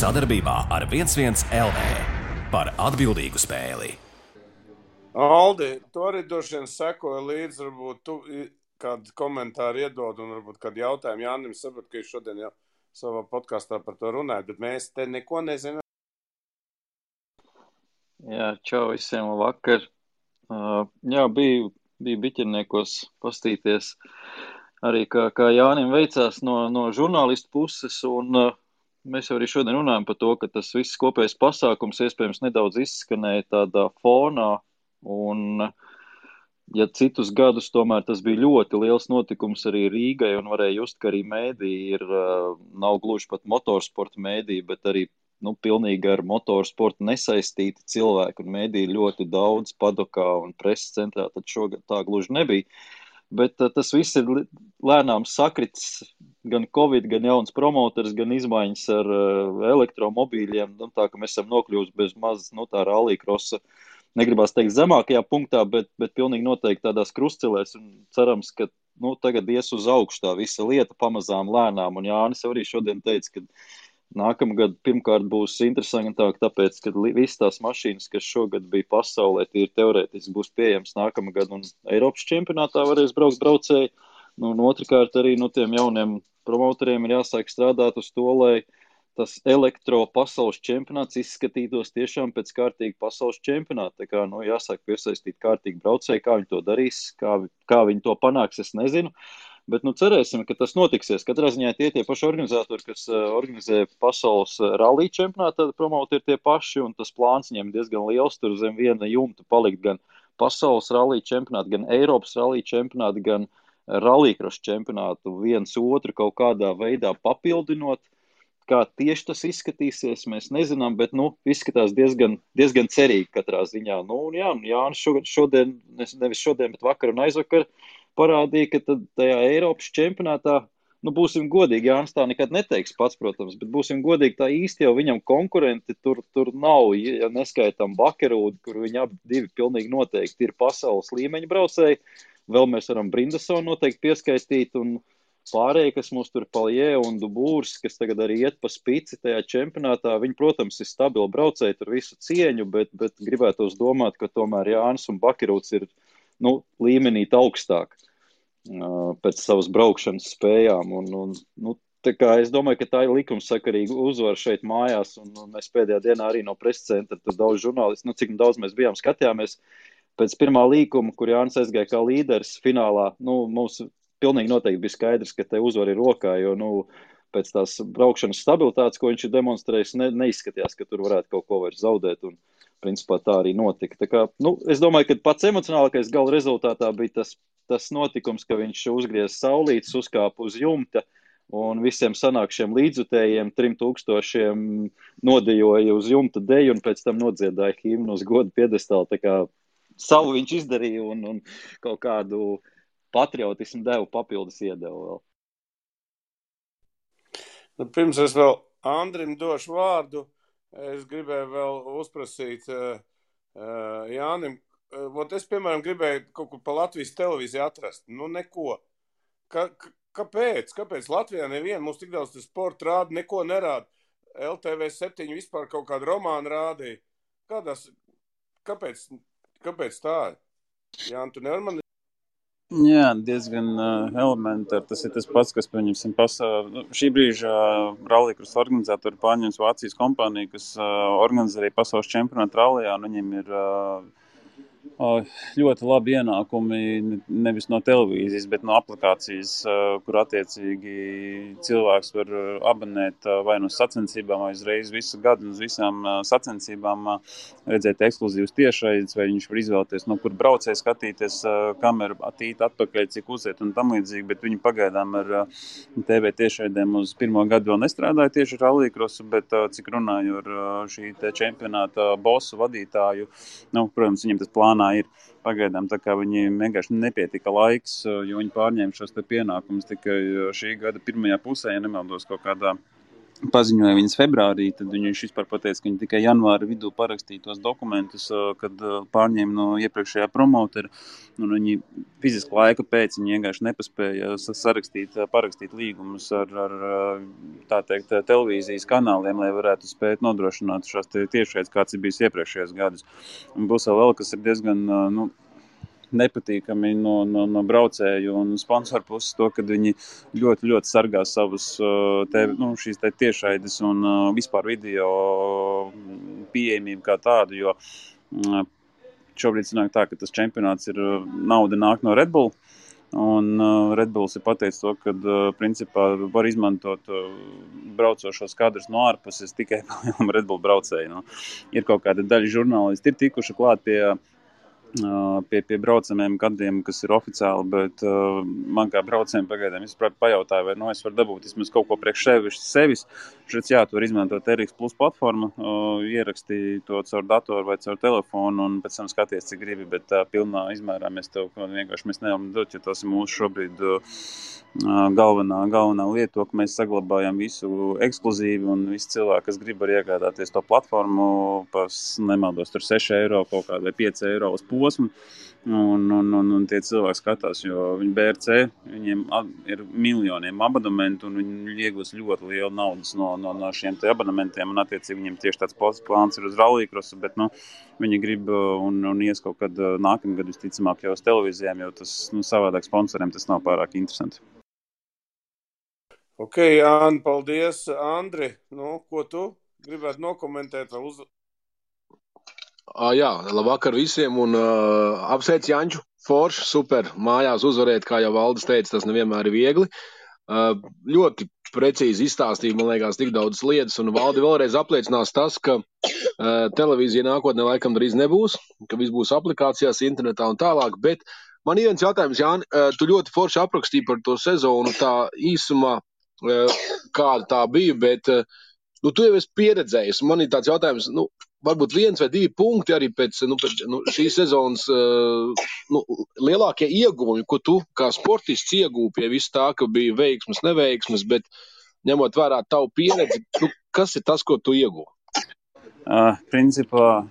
Sadarbībā ar 11 LV par atbildīgu spēli. Aldi, tu arī droši vien sekoji līdzi, varbūt tu kādu komentāru iedod un varbūt kādu jautājumu Jānim, sapratu, ka jūs šodien jau savā podkastā par to runājat, bet mēs te neko nezinām. Jā, čau visiem, vakar. Jā, biju biķerniekos pastīties arī, kā Jānim veicās no žurnālistu puses, un mēs jau arī šodien runājam par to, ka tas viss kopējs pasākums iespējams nedaudz izskanēja tādā fonā, un ja citus gadus tomēr tas bija ļoti liels notikums arī Rīgai, un varēja just, ka arī mēdī nav gluži pat motorsporta mēdī, bet arī pilnīgi ar motorsportu nesaistīti cilvēki, un mēdī ļoti daudz padokā un preses centrā, tad šogad tā gluži nebija. Bet tas viss ir lēnām sakrits, gan Covid, gan jauns promoters, gan izmaiņas ar elektromobīļiem, tā ka mēs esam nokļūst bez maz, tā rallija-krosa, negribās teikt zemākajā punktā, bet pilnīgi noteikti tādās krustcelēs, un cerams, ka tagad ies uz augšu tā visa lieta pamazām lēnām, un Jānis arī šodien teica, ka nākamgad pirmkārt būs interesantāk, tāpēc, ka visas tās mašīnas, kas šogad bija pasaulē, tīri teorētiski būs pieejams nākamgad, un Eiropas čempionātā varēs braukt braucēji, un otrkārt arī tiem jauniem promotoriem ir jāsāk strādāt uz to, lai tas elektro pasaules čempionāts izskatītos tiešām pēc kārtīgi pasaules čempionāta. Tā kā, jāsāk piesaistīt kārtīgi braucēji, kā viņi to darīs, kā viņi to panāks, es nezinu. Bet cerēsim, ka tas notiksies. Katrā ziņā tie paši organizatori, kas organizē pasaules rallija čempionātu, tad promoti ir tie paši, un tas plāns viņiem diezgan liels, tur zem viena jumta palikt gan pasaules rallija čempionātu, gan Eiropas rallija čempionātu, gan rallija-kross čempionātu viens otru kaut kādā veidā papildinot. Kā tieši tas izskatīsies, mēs nezinām, bet izskatās diezgan cerīgi katrā ziņā. Jānis šodien, nevis šodien, bet vakar un aizvakar parādīja, ka tad tajā Eiropas čempionātā, būsim godīgi, Jānis tā nekad neteiks pats, protams, bet būsim godīgi, tā īsti jau viņam konkurenti tur nav, ja neskaitām Bakerūdu, kur viņi abi divi pilnīgi noteikti ir pasaules līmeņa braucēji, vēl mēs varam Brindasonu noteikti pieskaistīt, un pārējie, kas mums tur Paljē un Dubūrs, kas tagad arī iet pa spici tajā čempionātā, viņi, protams, ir stabili braucēji, tur visu cieņu, bet gribētos domāt, ka tomēr Jānis un Bakerūds ir līmenī augstāk pēc savas braukšanas spējām. Tā kā es domāju, ka tā ir likumsakarīga uzvara šeit mājās, un mēs pēdējā dienā arī no preses centra, tur daudz žurnālisti, cik daudz mēs bijām, skatījāmies pēc pirmā līkuma, kur Jānis aizgāja kā līderis finālā. Mums pilnīgi noteikti bija skaidrs, ka te uzvara ir rokā, jo pēc tās braukšanas stabilitātes, ko viņš ir demonstrējis, neizskatījās, ka tur varētu kaut ko vairs zaudēt, un principā tā arī notika. Tā kā, es domāju, ka pats emocionālākais gala rezultātā bija tas notikums, ka viņš uzgriez saulītes, uzkāpa uz jumta, un visiem sanākšiem līdzutējiem 3000 nodejoja uz jumta deju, un pēc tam nodziedāja himnu uz godu piedestālu. Tā kā savu viņš izdarīja, un kaut kādu patriotismu devu papildus iedevu vēl. Pirms es vēl Andrim došu vārdu, es gribēju vēl uzprasīt Jānim. Es, piemēram, gribēju kaut kur pa Latvijas televīziju atrast. Neko. Kāpēc? Kāpēc Latvijā neviena mums tik daudz sporta rāda, neko nerāda? LTV7 vispār kaut kādu romānu rādīja. Kāpēc tā ir? Jāni, tu nevar man... Jā, diezgan elementāri. Tas ir tas pats, kas, pieņemsim, šī brīža rallija-kross organizatori pārņems Vācijas kompāniju, kas organizē arī pasaules čempionātu rallijā, un viņiem ir ļoti labi ienākumi nevis no televīzijas, bet no aplikācijas, kur attiecīgi cilvēks var abonēt vai no sacensībām, vai uzreiz visu gadu uz visām sacensībām redzēt ekskluzīvas tiešraides, vai viņš var izvēlēties, no kur braucēji skatīties kameru atīt atpakaļ, cik uziet un tam līdzīgi, bet viņi pagaidām ar TV tiešraidēm uz pirmo gadu vēl nestrādāja tieši rallija-krosu, bet cik runāju ar šī te čempionāta bosu vadītāju, protams, viņam tas plānā ir pagaidām, tā kā viņiem vienkārši nepietika laiks, jo viņi pārņēma šos te pienākumus tikai šī gada pirmajā pusē, ja nemaldos kaut kādā paziņoja viņas februārī, tad viņš vispār pateica, ka viņi tikai janvāra vidū parakstīja tos dokumentus, kad pārņēma no iepriekšējā promotera, un viņi fiziski laika pēc viņi vienkārši nepaspēja parakstīt līgumus ar tā teikt, televīzijas kanāliem, lai varētu spēt nodrošināt šās tiešraides, kāds ir bijis iepriekšējos gadus. Un būs vēl, kas ir diezgan, nepatīkami no braucēju un sponsoru puses to, kad viņi ļoti, ļoti sargā savus šīs tiešraides un vispār video pieejamību kā tādu, jo šobrīd sanāk tā, ka tas čempionāts nauda nāk no Red Bull, un Red Bulls ir pateicis to, ka principā var izmantot braucošos kadrus no ārpuses tikai Red Bull braucēju. Ir kaut kāda daļa žurnālisti ir tikuši klāt pie braucamiem kadriem, kas ir oficiāli, bet man kā braucējiem pagaidām pajautāja, vai es varu dabūt vismaz kaut ko priekš sevis. Šeit tu var izmantot RX Plus platformu, ierakstīt to caur datoru vai caur telefonu un pēc tam skaties, cik gribi, bet pilnā izmērā mēs nevaram dot, jo tas ir mūsu šobrīd galvenā lieta, to, ka mēs saglabājam visu ekskluzīvi un visi cilvēki, kas grib var iegādāties to platformu, nemaldos tur 6 eiro kaut kāda vai 5 eiro uz posmu, un tie cilvēki skatās, jo viņi BRC, viņiem ir miljoniem abonementu un viņi iegūs ļoti lielu naudas no šiem te abonementiem, un attiecīgi viņiem tieši tāds plāns ir uz rallycrossu, bet viņi grib un ies kaut kad nākamgad visticamāk jau uz televīzijām, jo tas savādāk sponsoriem tas nav pārāk interesanti. Ok, Jāni, paldies. Andri, ko tu gribētu nokomentēt? Jā, labvakar visiem un apsveic Janču, forši, super, mājās uzvarēt, kā jau Valdis teica, tas nevienmēr ir viegli. Ļoti precīzi izstāstīja, man liekas, tik daudz lietas, un Valdi vēlreiz apliecinās tas, ka televīzija nākotnē laikam drīz nebūs, ka viss būs aplikācijās, internetā un tālāk, bet man ir viens jautājums, Jāni, tu ļoti forši aprakstīji par to sezonu tā īsumā, kāda tā bija, bet tu jau esi pieredzējis. Man ir tāds jautājums, varbūt 1 vai 2 punkti arī pēc šīs sezonas lielākie ieguvumi, ko tu kā sportists iegūvi pie visu tā, ka bija veiksmes, neveiksmes, bet ņemot vērā tavu pieredzi, kas ir tas, ko tu ieguvi? Principā,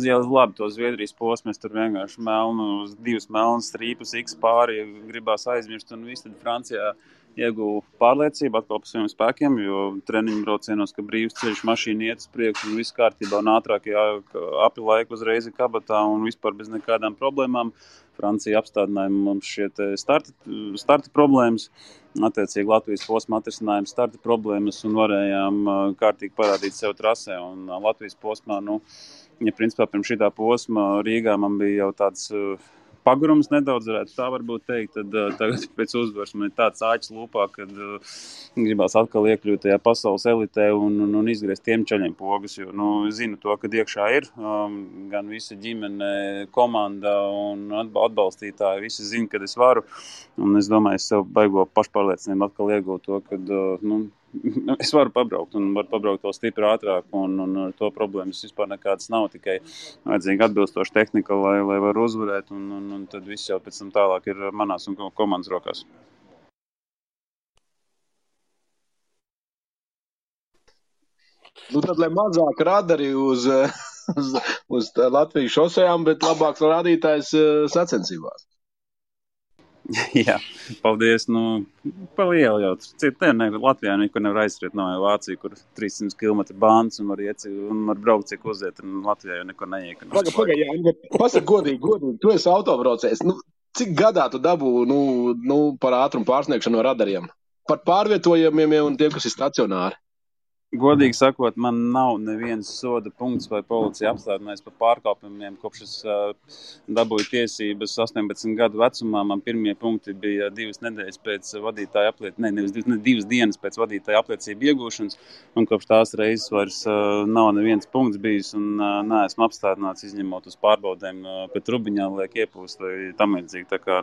jau labi to Zviedrijas posmu, es tur vienkārši divas melnas strīpus X pāri gribās aizmirst, un viss tad Francijā ieguvu pārliecību atkal par saviem spēkiem, jo treniņu braucienos, ka brīvs ceļš mašīna iet uz priekšu un viss kārtībā un ātrāk api laiku uzreiz kabatā un vispār bez nekādām problēmām. Francija apstādināja mums šie starta problēmas, attiecīgi Latvijas posma atrisinājuma starta problēmas un varējām kārtīgi parādīt sev trasē. Un Latvijas posmā, principā pirms šitā posma Rīgā man bija jau tāds pagurums nedaudz, varētu tā varbūt teikt, tad tagad pēc uzvaras man ir tāds āķis lūpā, kad gribās atkal iekļūt tajā pasaules elitē un izgriezt tiem čaļiem pogas, jo zinu to, kad iekšā ir gan visa ģimene, komanda un atbalstītāji, visi zina, kad es varu, un es domāju, es sev baigo pašpārliecinājumu atkal iegūt to, kad es varu pabraukt un varu pabraukt vēl stipri ātrāk un ar to problēmas vispār nekādas nav, tikai vajadzīga atbilstoša tehnika, lai var uzvarēt un tad viss jau pēc tam tālāk ir manās un komandas rokās. Tad, lai mazāk radari uz Latvijas šosejām, bet labāks rādītājs sacensībās. Jā, paldies. Pa lielu jau. Latvijā nekur nevar aizskriet, nav jau Vācija, kur 300 km bāns un var braukt, cik uziet, un Latvijā jau nekur neiek. Pagaid, pasaka godīgi, tu esi autobraucējs. Cik gadā tu dabū par ātrumu pārsniegšanu no radariem? Par pārvietojumiem un tiem, kas ir stacionāri? Godīgi sakot, man nav neviens soda punkts vai policija apstādinājis par pārkāpumiem, kopš es dabūju tiesības 18 gadu vecumā. Man pirmie punkti bija 2 nedēļas pēc vadītāja apliecības, 2 dienas pēc vadītāja apliecību iegūšanas, un kopš tās reizes vairs nav neviens punkts bijis, un neesmu apstādināts izņemot uz pārbaudēm pēc rubiņā, liek iepūst vai tam līdzīgi. Tā kā,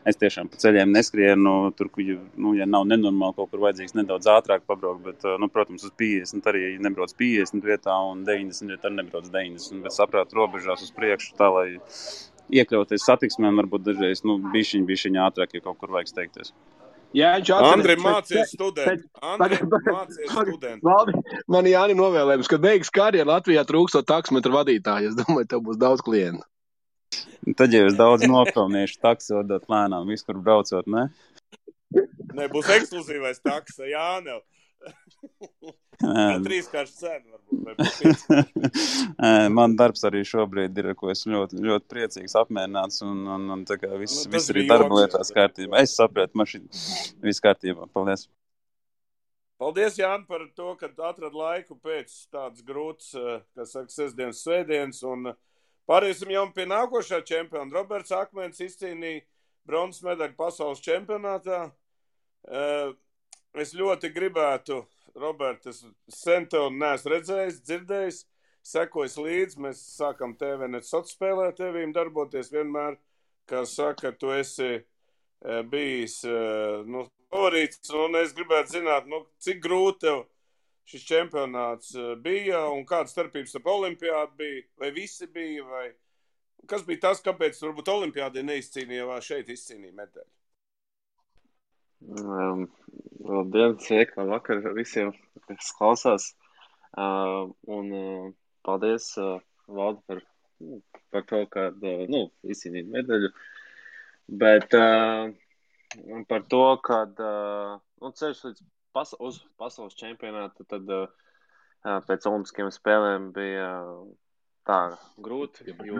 es tiešām pa ceļiem neskrienu, tur, ja nav nenormāli, kaut kur vajadzīgs nedaudz ātrāk pabraukt, bet, protams, uz 50 arī nebrauc 50 vietā un 90 vietā arī nebrauc 90, bet saprāt robežās uz priekšu tā, lai iekļauties satiksmēm, varbūt dažreiz bišķiņ ātrāk, ja kaut kur vajag steigties. Jāņš Andri, atcerēs. mācies studenti. Andri, mācies studenti. Valdi, man Jāni novēlējums, kad beigas karjeru Latvijā trūkstot taksometru vadītāju. Es domāju, tev būs daudz klientu. Tad jau es daudz nopelnīšu taksi vadot lēnām, viskur braucot, ne? Nē, būs ekskluzīvais taksa, Jānev. Trīskārši cena varbūt. Man darbs arī šobrīd ir, ko es ļoti, ļoti priecīgs, apmierināts un tā kā viss arī bija darba joks, lietās kārtībā. Es sapratu, viss kārtībā. Paldies. Paldies, Jāni, par to, ka atrad laiku pēc tādas grūtas, kas saka, sestdienas, svētdienas. Un pāriesim jau pie nākošā čempiona. Roberts Akmens izcīnīja bronzas medaļu pasaules čempionātā. Es ļoti gribētu, Robert, es sen tev neesmu redzējis, dzirdējis, sekojis līdzi. Mēs sākam TVNet sociālajā spēlē tevīm darboties vienmēr, kā saka, tu esi bijis favorīts, un es gribētu zināt, cik grūti tev šis čempionāts bija, un kāda starpības starp olimpiādu bija, vai visi bija, vai kas bija tas, kāpēc varbūt olimpiādē neizcīnīja, šeit izcīnīja medaļu? Labdien, sveiki, labvakar visiem, kas klausās. Paldies, Valdi, par to, ka izcīnīt medaļu. Bet par to, kad ceļš līdz uz pasaules čempionātu, tad pēc olimpiskajām spēlēm bija tā grūti, jo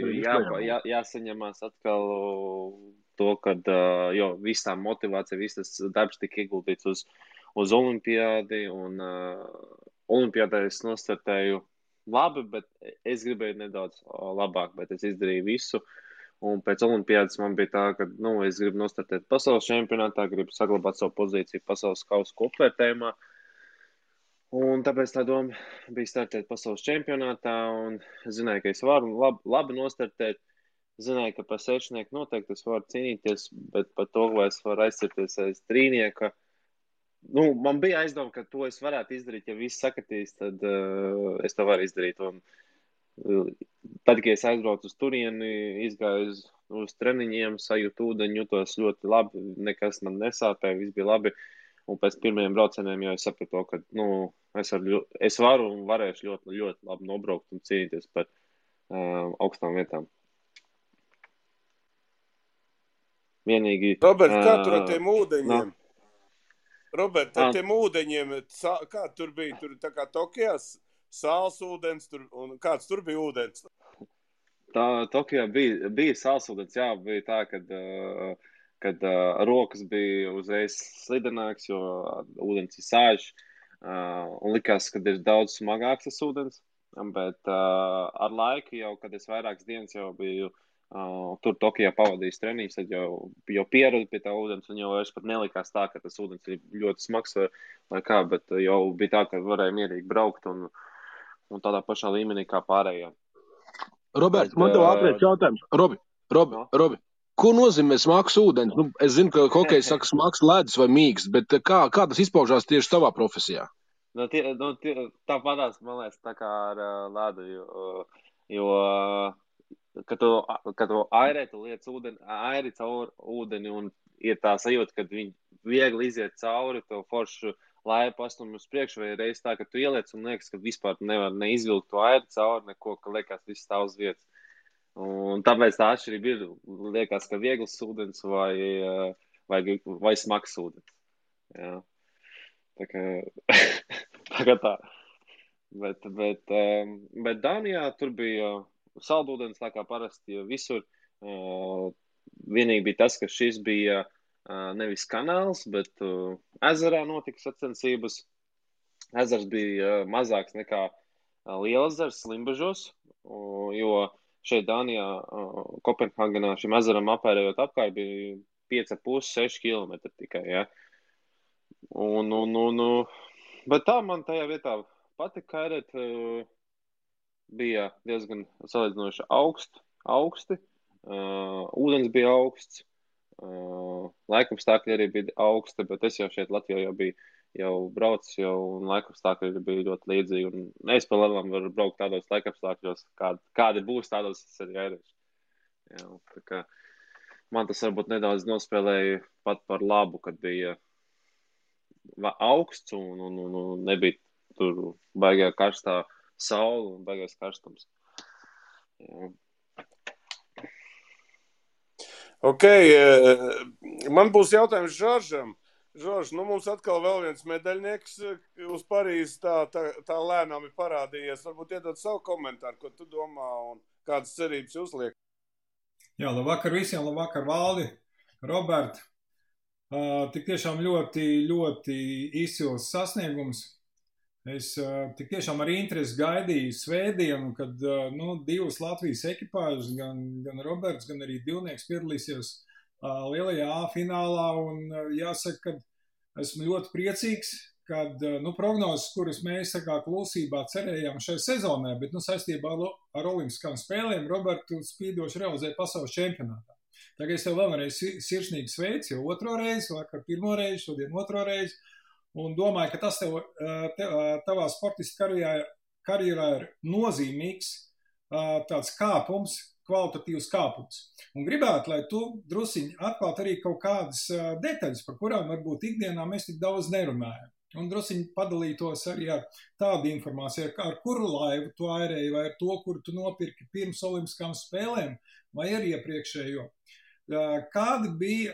bija jāsaņemās atkal to, kad viss tā motivācija, viss tas darbs tika ieguldīts uz olimpiādi, un olimpiādē es nostartēju labi, bet es gribēju nedaudz labāk, bet es izdarīju visu, un pēc olimpiādas man bija tā, ka, es gribu nostartēt pasaules čempionātā, gribu saglabāt savu pozīciju pasaules kausa kopvērtējumā, un tāpēc tā doma bija startēt pasaules čempionātā, un es zināju, ka es varu labi nostartēt. Zināju, ka par sešnieku noteikti es varu cīnīties, bet par to, vai es varu aizcirties aiz trīnieka. Man bija aizdoma, ka to es varētu izdarīt, ja viss sakatīs, tad es to varu izdarīt. Un tad, kad es aizbraucu uz turieni, izgāju uz treniņiem, sajūtu ūdeņu, jutos ļoti labi, nekas man nesāpēja, viss bija labi. Un pēc pirmajiem braucieniem jau es sapratu, ka es varu un varēšu ļoti, ļoti labi nobraukt un cīnīties par augstām vietām. Vienīgi... Robert, kā tur ar tiem ūdeņiem? Robert, ar tiem ūdeņiem, kā tur bija? Tur tā kā Tokijā sāls ūdens, un kāds tur bija ūdens? Tokijā bija sāls ūdens, jā, bija tā, kad rokas bija uzreiz slidenāks, jo ūdens ir sāļš, un likās, kad ir daudz smagāks tas ūdens, bet ar laiku jau, kad es vairākas dienas jau biju tur Tokijā pavadījis treniņus, tad jau pieradu pie tā ūdens, un jau es pat nelikās tā, ka tas ūdens ir ļoti smags vai kā, bet jau bija tā, ka varēja mierīgi braukt un tādā pašā līmenī kā pārējā. Roberts, man tev ātrēc jautājums. Robi, ko nozīmē smags ūdens? Es zinu, ka hokejs saka smags ledus vai mīksts, bet kā tas izpaužās tieši tavā profesijā? Tāpatās, man liekas, tā kā ar ledu, jo kad tu airē, tu liec airi caur ūdeni, un ir tā sajūta, kad viņi viegli iziet cauri, to foršu laipu pastum uz priekšu, vai reiz tā, ka tu ieliec un liekas, ka vispār nevar neizvilkt to airi cauri, neko, ka liekas viss stāv uz vietas. Un tāpēc tā atšķirība ir, liekas, ka viegls ūdens vai smags ūdens. Jā. Tā kā tā. Bet Dānijā tur bija saldūdens, tā kā parasti visur. Vienīgi bija tas, ka šis bija nevis kanāls, bet ezerā notika sacensības. Ezers bija mazāks nekā Lielezers Limbažos, jo šeit Dānijā, Kopenhāgenā šim ezeram apērējot apkārt bija 5,5–6 km tikai, ja. Bet tā man tajā vietā patika kairēt, bija diezgan salīdzinoši augsti, ūdens bija augsts, laikapstākļi arī bija augsti, bet es jau šeit Latvijā jau braucu, un laikapstākļi bija ļoti līdzīgi, un es pa lielam varu braukt tādos laikapstākļos, kādi būs, tādos es arī airēšu. Jā, tā kā man tas varbūt nedaudz nospēlēja pat par labu, kad bija augsts un nebija tur baigā karstā saule un baigais karstums. Jā. Ok, man būs jautājums Žoržam. Žorž, mums atkal vēl viens medaļnieks uz Parīzes tā lēnām ir parādījies. Varbūt iedod savu komentāru, ko tu domā un kādas cerības uzliek. Jā, labvakar visiem, labvakar Valdi, Robert. Tik tiešām ļoti, ļoti izcils sasniegums. Es tik tiešām ar interesi gaidīju svētdienu, kad divas Latvijas ekipāžas, gan Roberts, gan arī divnieks piedalīsies lielajā A finālā. Un jāsaka, ka esmu ļoti priecīgs, kad prognozes, kuras mēs klusībā cerējām šai sezonai, bet saistībā ar olimpiskām spēlēm Robertu spīdoši realizēja pasaules čempionātā. Tagad es tev vēlreiz sirsnīgi sveicu, jau otro reizi, vakar pirmo reizi, šodien otro reizi, un domāju, ka tas tavā sportista karjerā ir nozīmīgs tāds kāpums, kvalitatīvs kāpums. Un gribētu, lai tu drusiņi atklāt arī kaut kādas detaļas, par kurām varbūt ikdienā mēs tik daudz nerunājam. Un drusiņi padalītos arī ar tādu informāciju, ar kuru laivu tu airēji, vai ar to, kuru tu nopirki pirms olimpiskām spēlēm, vai ar iepriekšējo. Kādi bija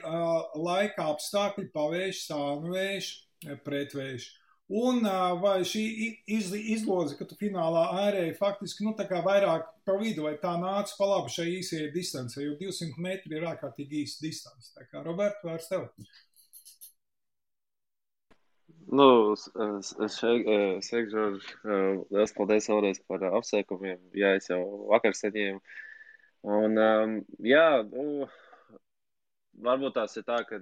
laika apstākļi, pavējš, sānvējš, pretvējš? Un vai šī izloze, ka tu finālā airēji faktiski, tā kā vairāk pa vidu, vai tā nāca pa labu šai īsajai distancei, jo 200 metri ir ārkārtīgi īsa distance. Tā kā, Robert, vairs tev. Sveiki, Žorž. Liels paldies vēlreiz par apsveikumiem. Jā, es jau vakar saņēmu. Un, varbūt tās ir tā, ka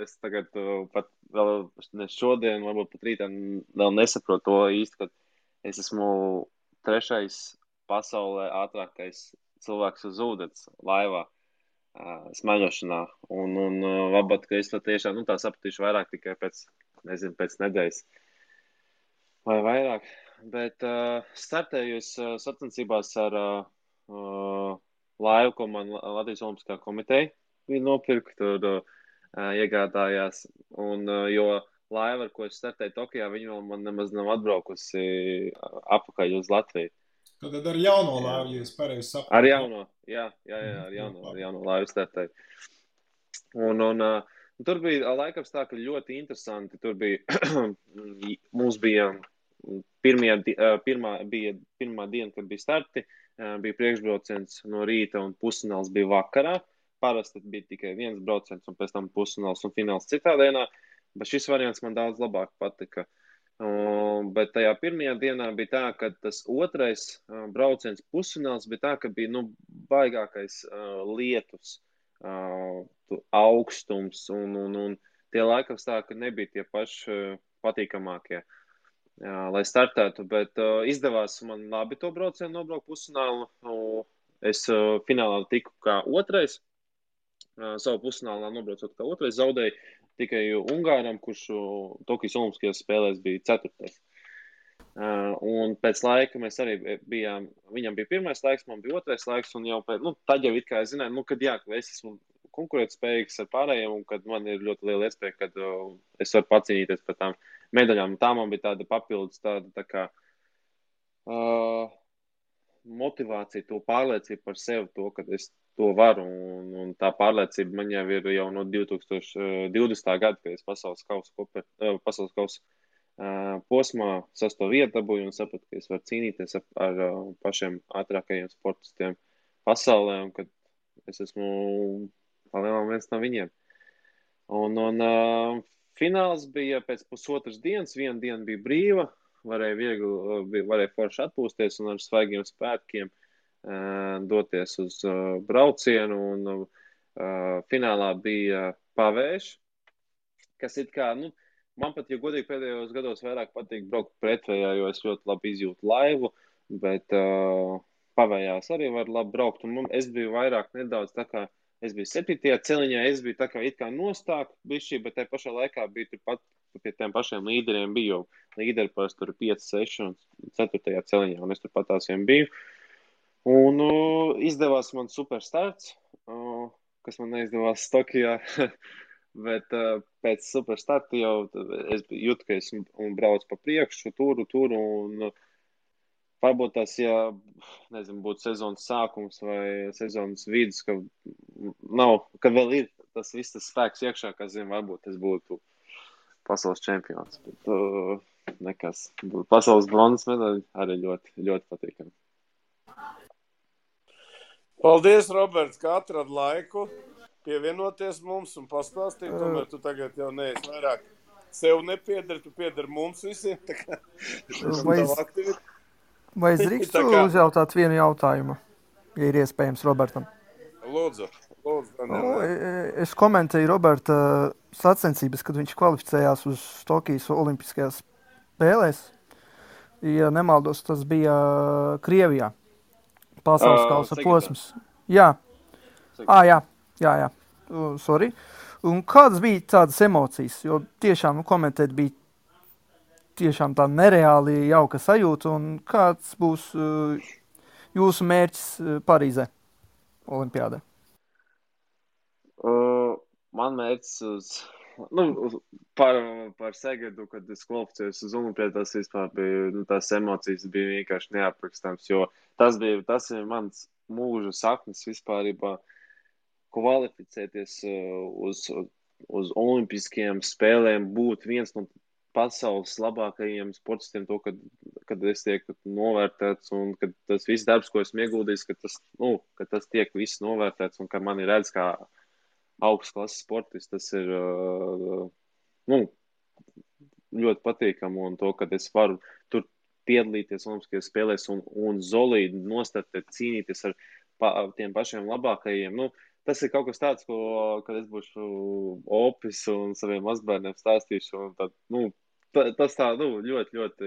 es tagad pat vēl ne šodien, varbūt pat rītā vēl nesaprotu to īsti, ka es esmu 3. pasaulē ātrākais cilvēks uz ūdens laivā smaļošanā. Un varbūt, ka es to tiešām tā sapratīšu vairāk tikai pēc nedēļas vai vairāk. Bet startēju es sacensībās ar laivu, ko man Latvijas Olimpiskā komiteja bija nopirkt, tur iegādājās. Un, jo laiva, ar ko es startēju Tokijā, viņa vēl man nemaz nav atbraukusi apakaļ uz Latviju. Tad ar jauno laivu, ja es pareizi saprotu. Ar jauno, jā, ar jauno laivu startēju. Un tur bija laikapstākļi ļoti interesanti. Tur bija, mums bija pirmā diena, kad bija starti, bija priekšbrauciens no rīta un pusfināls bija vakarā. Parasti bija tikai viens brauciens un pēc tam pusfināls un fināls citā dienā, bet šis variants man daudz labāk patika. Bet tajā pirmajā dienā bija tā, ka tas otrais brauciens pusfināls bija tā, ka bija baigākais lietus. Augstums un tie laikapstākļi nebija tie paši patīkamākie, lai startētu, bet izdevās man labi to braucienu nobraukt pusfinālu. Es finālā tiku kā otrais, savu pusfinālā nobraucot kā otrais, zaudēju tikai Ungāram, kurš Tokijas Olimpiskajās spēlēs bija 4. Un pēc laika mēs arī bijām, viņam bija pirmais laiks, man bija otrais laiks, un jau tad jau it kā es zināju, ka es esmu konkurētspējīgs ar pārējiem, un kad man ir ļoti liela iespēja, kad es varu pacīnīties par tām medaļām. Tā man bija tāda papildus, tā kā motivācija, to pārliecību par sevi, to, ka es to varu, un tā pārliecība man jau ir jau no 2020. gada, kad es pasaules kausa posmā 6. vietu dabūju un sapratu, ka es varu cīnīties ar pašiem ātrākajiem sportistiem pasaulē, un kad es esmu palielam viens no viņiem. Un fināls bija pēc pusotras dienas, viena diena bija brīva, varēja forši atpūsties un ar svaigiem spēkiem doties uz braucienu, un finālā bija pavējš, kas it kā, man pat, ja godīgi pēdējos gados vairāk patīk braukt pretvējā, jo es ļoti labi izjūtu laivu, bet pavējās arī var labi braukt, un es biju vairāk nedaudz tā kā, es biju 7. celiņā, es biju tā kā it kā nostāk bišķī, bet tajā pašā laikā bija turpat pie tiem pašiem līderiem bija, jo līderi parasti tur 5, 6 un 4. celiņā, un es turpat tās vien biju. Un izdevās man super starts. kas man neizdevās Tokijā. Bet pēc superstarta jau es jūtu, ka es braucu pa priekšu, turu, un varbūt tas, ja, nezinu, būtu sezonas sākums vai sezonas vidus, ka vēl ir tas viss tas spēks iekšā, kas, zinu, varbūt es būtu pasaules čempions. Bet nekas. Pasaules bronzas medaļa arī ļoti, ļoti patīkami. Paldies, Roberts, ka atrad laiku pievienoties mums un pastāstīt. Tomēr tu tagad jau neesi vairāk sev nepiedari, tu piedari mums visiem. Tā kā vai es drīkstu uzjautāt vienu jautājumu, ja ir iespējams Robertam? Lūdzu. Es komentēju Roberta sacensības, kad viņš kvalificējās uz Tokijas olimpiskajās spēlēs. Ja nemaldos, tas bija Krievijā. Pasaules kausa posms. Jā. Jā. Sorry. Un kādas bija tādas emocijas? Jo tiešām komentēt bija tiešām tā nereāli jauka sajūta. Un kāds būs jūsu mērķis Parīzē olimpiādē? Man mērķis par Segadu, kad es kvalificējos uz olimpiādās, vispār bija, tās emocijas bija vienkārši neaprakstāms, jo tas ir mans mūža saknes vispārībā kvalificēties uz olimpiskajām spēlēm, būt viens no pasaules labākajiem sportistiem, to, kad es tiek novērtēts un kad tas viss darbs, ko esmu ieguldījis, ka tas tiek viss novērtēts un ka mani redz kā augsts klases sportists, tas ir ļoti patīkami un to, kad es varu tur piedalīties olimpiskajās spēlēs un solīdi nostartēt, cīnīties ar tiem pašiem labākajiem. Tas ir kaut kas tāds, kad es būšu opis un saviem mazbērniem stāstīšu, un tad, tas tā, ļoti, ļoti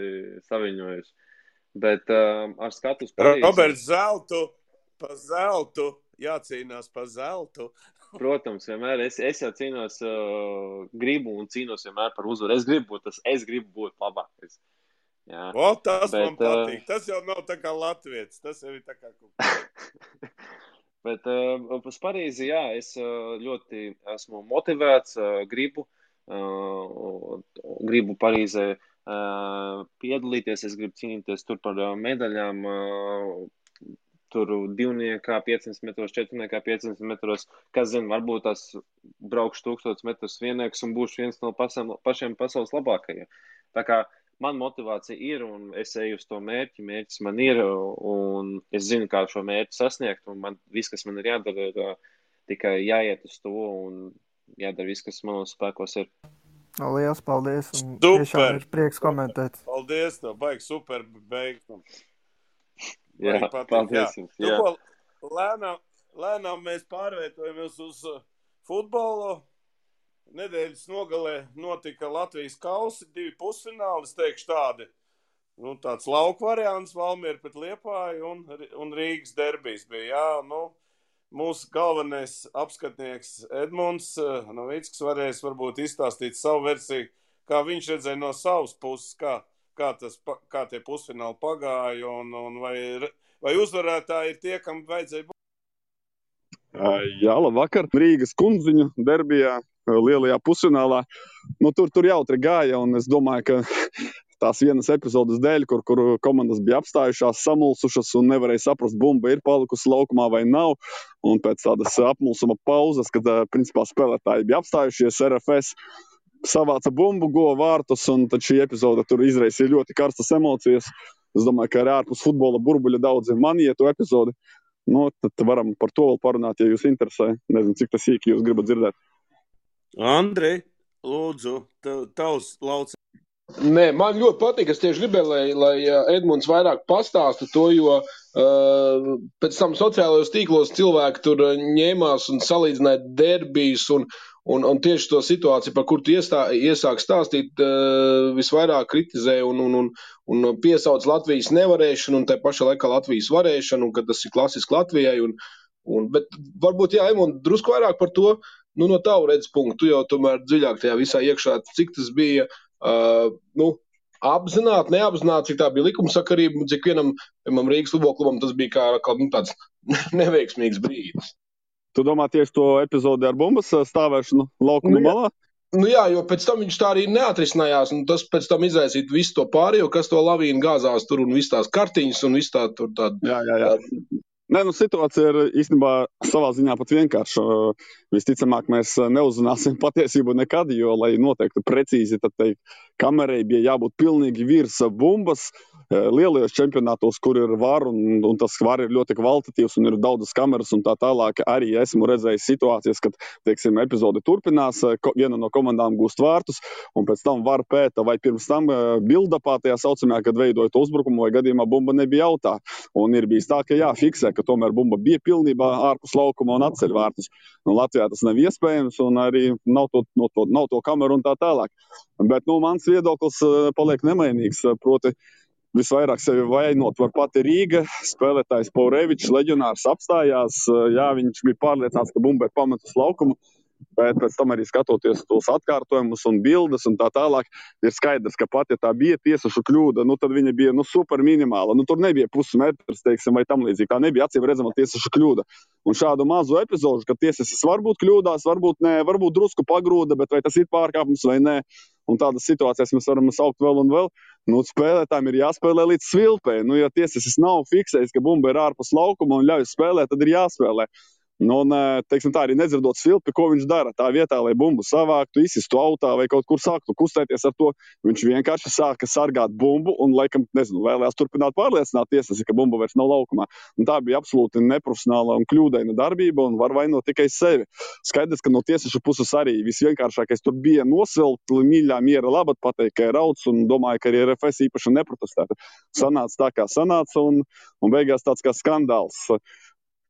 saviņojuši. Bet ar skatu uz Parīzi... Roberts, zeltu, jācīnās par zeltu. Protams, vienmēr es jau cīnos, gribu un cīnos vienmēr par uzvaru. Es gribu būt labākais. Jā. Tas man patīk. Tas jau nav tā kā latvietis, tas jau ir tā kā kaut Bet uz Parīzi, jā, es ļoti esmu motivēts, gribu Parīzē piedalīties, es gribu cīnīties tur par medaļām, tur 200, 500 metros, 400, 500 metros, kas zina, varbūt tās braukšu 1000 metrus viennieks un būšu viens no pašiem pasaules labākajiem. Tā kā man motivācija ir un es eju uz to mērķis man ir un es zinu, kā šo mērķi sasniegt un viss, kas man ir jādara, ir tikai jāiet uz to un jādara viss, kas manos spēkos ir. Lielas paldies un tiešām ir prieks komentēt. Paldies, baigi super beigas. Jā, paldies jums. Jā. Lēnām mēs pārvietojamies uz futbolu. Nedēļas nogalē notika Latvijas kausi, 2 pusfināli, es teikšu tādi. Tāds lauku variants, Valmiera pret Liepāju un Rīgas derbijs bija. Jā, mūsu galvenais apskatnieks Edmunds Novickis varēs varbūt izstāstīt savu versiju, kā viņš redzēja no savas puses, kā tie pusfināli pagāja un vai uzvarētāji ir tie, kam vajadzēja būt. Jā, labvakar. Rīgas Kundziņu derbijā, lielajā pusfinālā. Tur jautri gāja, un es domāju, ka tās vienas epizodes dēļ, kur komandas bija apstājušās, samulsušas un nevarēja saprast, bumba ir palikusi laukumā vai nav. Un pēc tādas apmulsuma pauzes, kad principā spēlētāji bija apstājušies, RFS savāca bumbu, guva vārtus, un tad šī epizode tur izraisīja ļoti karstas emocijas. Es domāju, ka arī ārpus futbola burbuļa daudzi manīja to epizodi. Tad varam par to vēl parunāt, ja jūs interesē. Nezinu, cik tas sīki jūs gribat dzirdēt. Andri, lūdzu, tavs lauciens. Nē, man ļoti patīk, es tieši gribēju, lai Edmunds vairāk pastāsta to, jo pēc tam sociālajos tīklos cilvēki tur ņēmās un salīdzināja derbijus un tieši to situāciju, par kur tu iesāk stāstīt, visvairāk kritizēja un piesauc Latvijas nevarēšanu un tai pašā laikā Latvijas varēšanu, un ka tas ir klasiski Latvijai. Bet varbūt, jā, Edmund, drusku vairāk par to, no tavu redz punktu, tu jau tomēr dziļāk tajā visā iekšā, cik tas bija apzināti, neapzināti, cik tā bija likumsakarība, cik vienam Rīgas futbola klubam tas bija kā tāds neveiksmīgs brīdis. Tu domā tieši to epizodi ar bumbas stāvēšanu laukuma malā? Nu jā, jo pēc tam viņš tā arī neatrisinājās, un tas pēc tam izraisītu visu to pārējo, kas to lavīnu gāzās tur un viss tās kartiņas un viss tā tur tāda. Jā. Nē, nu situācija ir īstenībā savā ziņā pat vienkārša. Visticamāk, mēs neuzzināsim patiesību nekad, jo, lai noteikti precīzi, tad teikt, kamerai bija jābūt pilnīgi virs bumbas. Lielajos čempionātos, kur ir var, un tas var ir ļoti kvalitatīvs un ir daudzas kameras un tā tālāk, arī esmu redzējis situācijas, kad, teiksim, epizode turpinās, viena no komandām gūst vārtus, un pēc tam var pēta, vai pirms tam bildapā tajā saucamajā, kad veidojot uzbrukumu, vai gadījumā bumba nebija jautā. Un ir bijis tā, ka jāfiksē, ka tomēr bumba bija pilnībā ārpus laukuma un atceļ vārtus. Nu, Latvijā tas nav iespējams, un arī nav to kameru un tā tālāk. Bet, mans viedoklis paliek nemainīgs, proti, visvairāk sevi vainot var pati Rīga. Spēlētājs Paurevičs, leģionārs, apstājās. Jā, viņš bija pārliecināts, ka bumba ir pametus laukumu, bet pēc tam arī skatoties tos atkārtojumus un bildes un tā tālāk, ir skaidrs, ka pat, ja tā bija tiesašu kļūda, tad viņa bija super minimāla. Tur nebija pusmetrs, teiksim, vai tam līdzīgi. Tā nebija acīm redzama tiesašu kļūda. Un šādu mazu epizodu, ka tiesasis varbūt kļūdās, varbūt nē, varbūt drusku pagrūda, bet vai tas ir pārkāpums vai nē. Un tādas situācijas mēs varam saukt vēl un vēl. Spēlētājiem ir jāspēlē līdz svilpē. Ja tiesasis nav fiksējis, ka bumba ir ārpus laukuma un ļauj spēlēt, tad ir jāspēlē. Teiksim tā, arī nedzirdot svilpi, ko viņš dara. Tā vietā, lai bumbu savāktu, izsistu autā vai kaut kur sāktu kustēties ar to, viņš vienkārši sāka sargāt bumbu un, laikam, vēlējās turpināt pārliecināt tiesasi, ka bumba vairs nav laukumā. Tā bija absolūti neprofesionāla un kļūdaina darbība un var vainot tikai sevi. Skaidrs, ka no tiesašu puses arī visvienkāršākais tur bija nosvilpt, mīļā miera labad pateikt, ka ir rauds, un domāju, ka arī RFS īpaši neprotestētu. Sanāca tā, kā sanāca, un beigās tāds kā skandāls.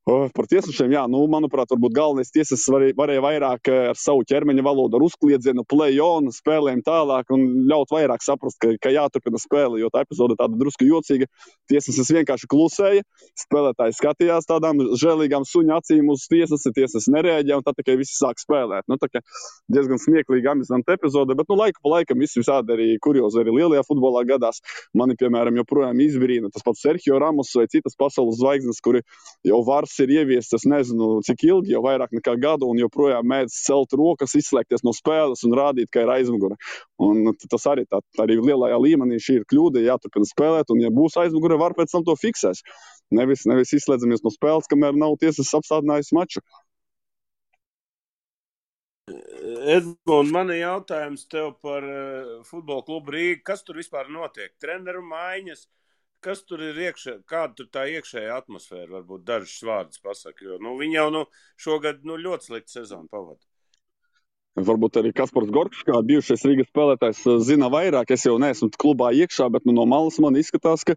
Par tiesašiem, jā, manuprāt, varbūt galvenais tiesas varēja vairāk ar savu ķermeņa valodu, ar uzkliedzienu, play-on, spēlēm tālāk un ļaut vairāk saprast, ka jāturpina spēle, jo tā epizode tāda drusku jocīga. Tiesas vienkārši klusēja, spēlētāji skatījās tādām žēlīgām suņa acīm uz tiesas nereaģēja un tad tikai visi sāk spēlēt. Tā kā diezgan smieklīga, amizanta epizode, bet laiku pa laikam visādi arī kuriozi arī lielajā futbolā gadās. Mani, piemēram, joprojām izbrīna tas pats Sergio Ramos vai citas pasaules zvaigznes, kuri jau var ir ieviests, es nezinu, cik ilgi, jau vairāk nekā gadu, un joprojām mēdz celt rokas, izslēgties no spēles un rādīt, ka ir aizmugure. Un tas arī arī lielajā līmenī šī ir kļūda, jāturpina spēlēt, un ja būs aizmugure, var pēc tam to fiksēs. Nevis izslēdzamies no spēles, kamēr nav tiesas apstādinājis maču. Edmund, man ir jautājums tev par futbola klubu Rīga. Kas tur vispār notiek? Treneru maiņas? Kas tur ir iekšē, kāda tur tā iekšējā atmosfēra, varbūt dažus vārdus pasaka, jo viņi jau šogad ļoti sliktu sezonu pavada. Varbūt arī Kaspars Gorkšs, kā bijušais Rīgas spēlētājs, zina vairāk. Es jau neesmu klubā iekšā, bet no malas man izskatās, ka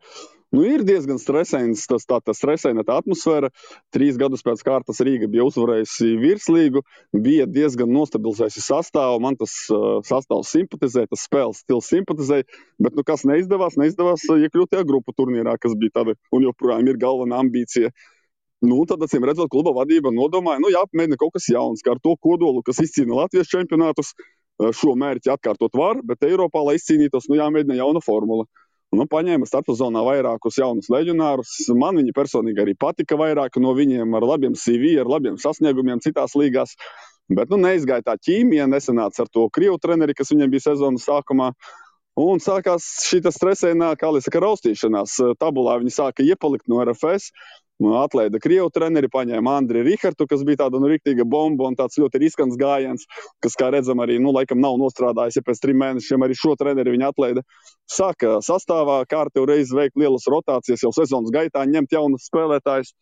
ir diezgan stresains, tā stresaina tā atmosfēra. 3 gadus pēc kārtas Rīga bija uzvarējusi virslīgu, bija diezgan nostabilizējusi sastāvu. Man tas sastāvs simpatizē, tas spēles stils simpatizē, bet kas neizdevās iekļūt tajā grupu turnīrā, kas bija tāda un joprojām ir galvenā ambīcija. Tad, acīm redzot, kluba vadība nodomāja, jāapmēģina kaut kas jauns, kā ar to kodolu, kas izcīna Latvijas čempionātus. Šo mērķi atkārtot var, bet Eiropā, lai izcīnītos, jāmēģina jauna formula. Paņēma starpsezonā vairākus jaunus leģionārus. Man viņi personīgi arī patika vairāk no viņiem, ar labiem CV, ar labiem sasniegumiem citās līgās. Bet neizgāja tā ķīmija, nesanāca ar to krievu treneri, kas viņiem bija sezonas sākumā. Un sākās šī stresainā, kā lai saka, raustīšanās. Tabulā viņi sāka iepalikt no RFS. Atlaida krievu treneri, paņēma Andri Rihartu, kas bija tāda riktīga bomba un tāds ļoti riskants gājiens, kas, kā redzam, arī laikam nav nostrādājis, ja pēc 3 mēnešiem arī šo treneri viņi atlaida. Sāka sastāvā kārtējo reizi veikt lielas rotācijas, jau sezonas gaitā ņemt jaunus spēlētājus.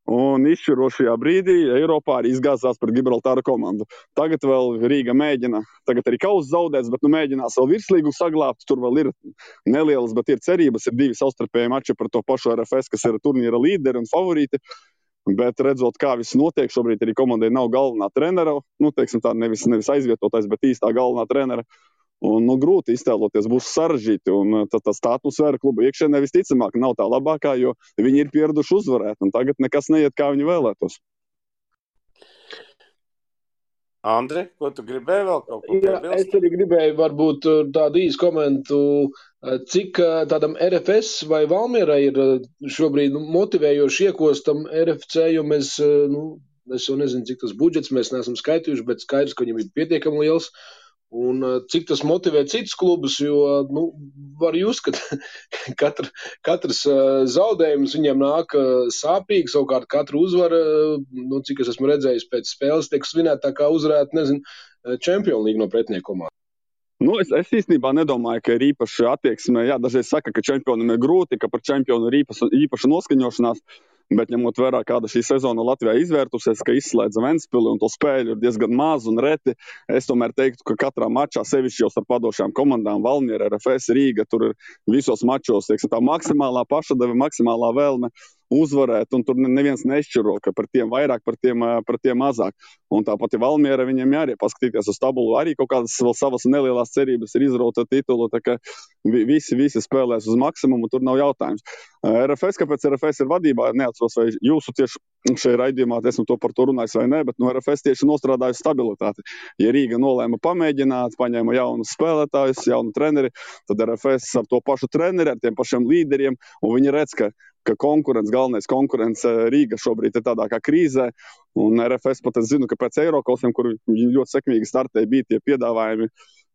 Un izšķirošajā brīdī Eiropā arī izgāzās pret Gibraltāra komandu. Tagad vēl Rīga mēģina, tagad arī kauss zaudēts, bet mēģinās vēl virslīgu saglābt. Tur vēl ir nelielas, bet ir cerības. Ir 2 savstarpēji mači par to pašu RFS, kas ir turnīra līderi un favorīti. Bet redzot, kā viss notiek, šobrīd arī komandai nav galvenā trenera. Teiksim tā, nevis aizvietotais, bet īstā galvenā trenera. Un grūti iztēloties, būs sarežģīti. Un tas tā atmosfēra kluba iekšienē visticamāk nav tā labākā, jo viņi ir pieraduši uzvarēt. Un tagad nekas neiet, kā viņi vēlētos. Andri, ko tu gribēji vēl kaut ko piebilst? Jā, es arī gribēju varbūt tādu īsu komentu, cik tādam RFS vai Valmierai ir šobrīd motivējoši iekostam RFC, jo mēs Es jau nezinu, cik tas budžets mēs neesam skaitījuši, bet skaidrs, ka viņam ir pietiekami liels. Un cik tas motivē citus klubus, jo, var just, ka katrs zaudējums viņiem nāk sāpīgi, savukārt katru uzvaru, cik es esmu redzējis pēc spēles, tiek svinēt tā kā uzvarēt, Champions League no pretinieku komandas. Es īstenībā nedomāju, ka ir īpaši attieksme. Jā, dažreiz saka, ka čempionam ir grūti, ka par čempionu ir īpaša noskaņošanās, bet ņemot vērā, kāda šī sezona Latvijā izvērtusies, ka izslēdza Ventspili un to spēļu ir diezgan maz un reti, es tomēr teiktu, ka katrā mačā, sevišķi jau starp padošajām komandām, Valmiera, RFS, Rīga, tur ir visos mačos, tā maksimālā pašadeve, maksimālā vēlme uzvarēt, un tur neviens nešķiro, ka par tiem vairāk, par tiem mazāk. Un tāpat ir Valmiera, viņiem arī paskatīties uz tabulu, arī kaut kādas vēl savas nelielās cerības ir izrauta titulu, tā ka visi spēlēs uz maksimumu, tur nav jautājums. RFS, kāpēc RFS ir vadībā, neatceros, vai jūsu tieši šajā raidījumā esmu to par to runājis vai ne, bet RFS tieši nostrādājusi stabilitāti. Ja Rīga nolēma pamēģināt, paņēma jaunus spēlētājus, jaunu treneri, tad RFS ar to pašu treneri, ar tiem pašiem līderiem, un viņi redz, ka galvenais konkurence Rīga šobrīd ir tādā kā krīzē, un RFS pat es zinu, ka pēc Eirokosiem, kur viņi ļoti sekmīgi startēja, bija tie piedāvājumi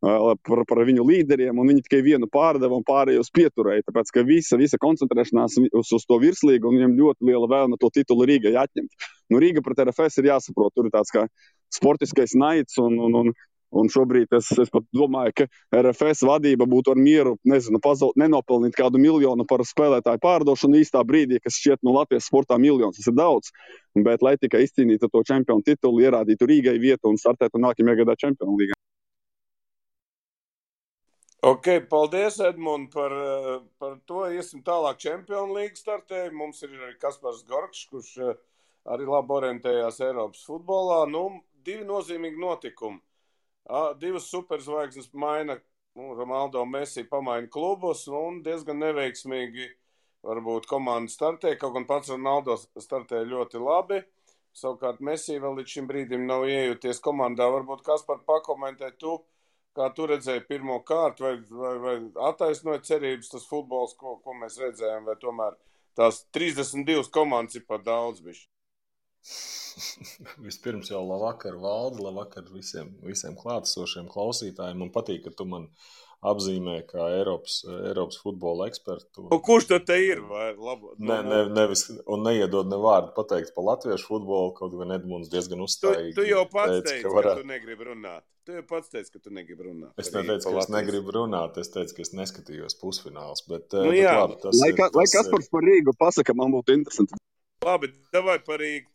par viņu līderiem, un viņi tikai vienu pārdeva un pārējos pieturēja, tāpēc, ka visa koncentrēšanās uz to virslīgu, un viņiem ļoti liela vēlme to titulu Rīgai atņemt. Rīga pret RFS ir jāsaprot, tur ir tāds kā sportiskais naids, un šobrīd es pat domāju, ka RFS vadība būtu ar mieru, nenopelnīt kādu miljonu par spēlētāju pārdošanu īstā brīdī, kas šķiet Latvijas sportā miljons, tas ir daudz, bet lai tikai izcīnītu to čempionu titulu, ierādītu Rīgai vietu un startētu nākamajā gadā Čempionu līgā. Ok, paldies, Edmund, par to. Iesim tālāk Čempionu līgu startēju. Mums ir arī Kaspars Gorkšs, kurš arī labi orientējās Eiropas futbolā. Divi nozīmīgi notikumi. Divas superzvaigznes maina, Ronaldo Messi pamaina klubus, un diezgan neveiksmīgi varbūt komanda startē, kaut gan pats Ronaldo startē ļoti labi. Savukārt Messi vēl līdz šim brīdim nav iejūties komandā. Varbūt Kaspar pakomentē tu, kā tu redzēji pirmo kārtu, vai attaisnoja cerības tas futbols, ko mēs redzējām, vai tomēr tās 32 komandas ir par daudz bišķi? Vispirms jau labvakar, Valdi, labvakar visiem klātesošiem klausītājiem. Man patīk, ka tu man apzīmē kā Eiropas futbola ekspertu. Kurš tad te ir? Nevis, un neiedod ne vārdu pateikt par latviešu futbolu, kaut gan Edmunds diezgan uzstājīgi. Tu jau pats teici, ka tu negribi runāt. Es neteicu, ka es negribu runāt, es teicu, ka es neskatījos pusfināls. Bet, lai Kaspars par Rīgu pasaka, man būtu interesanti. Labi, davai par Rīgu.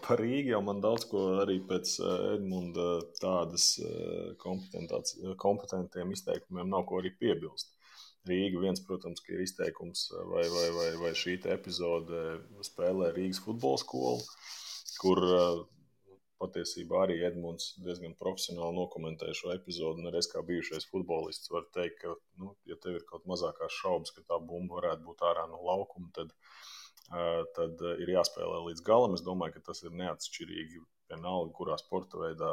Par Rīgu jau man daudz ko arī pēc Edmunda tādas kompetentiem izteikumiem nav ko arī piebilst. Rīga viens, protams, ka ir izteikums vai šī epizode spēlē Rīgas futbola skolu, kur patiesībā arī Edmunds diezgan profesionāli nokomentēja šo epizodu, un arī es kā bijušais futbolists varu teikt, ka, ja tev ir kaut mazākās šaubas, ka tā bumba varētu būt ārā no laukuma, tad ir jāspēlē līdz galam. Es domāju, ka tas ir neatšķirīgi vienalga, kurā sporta veidā,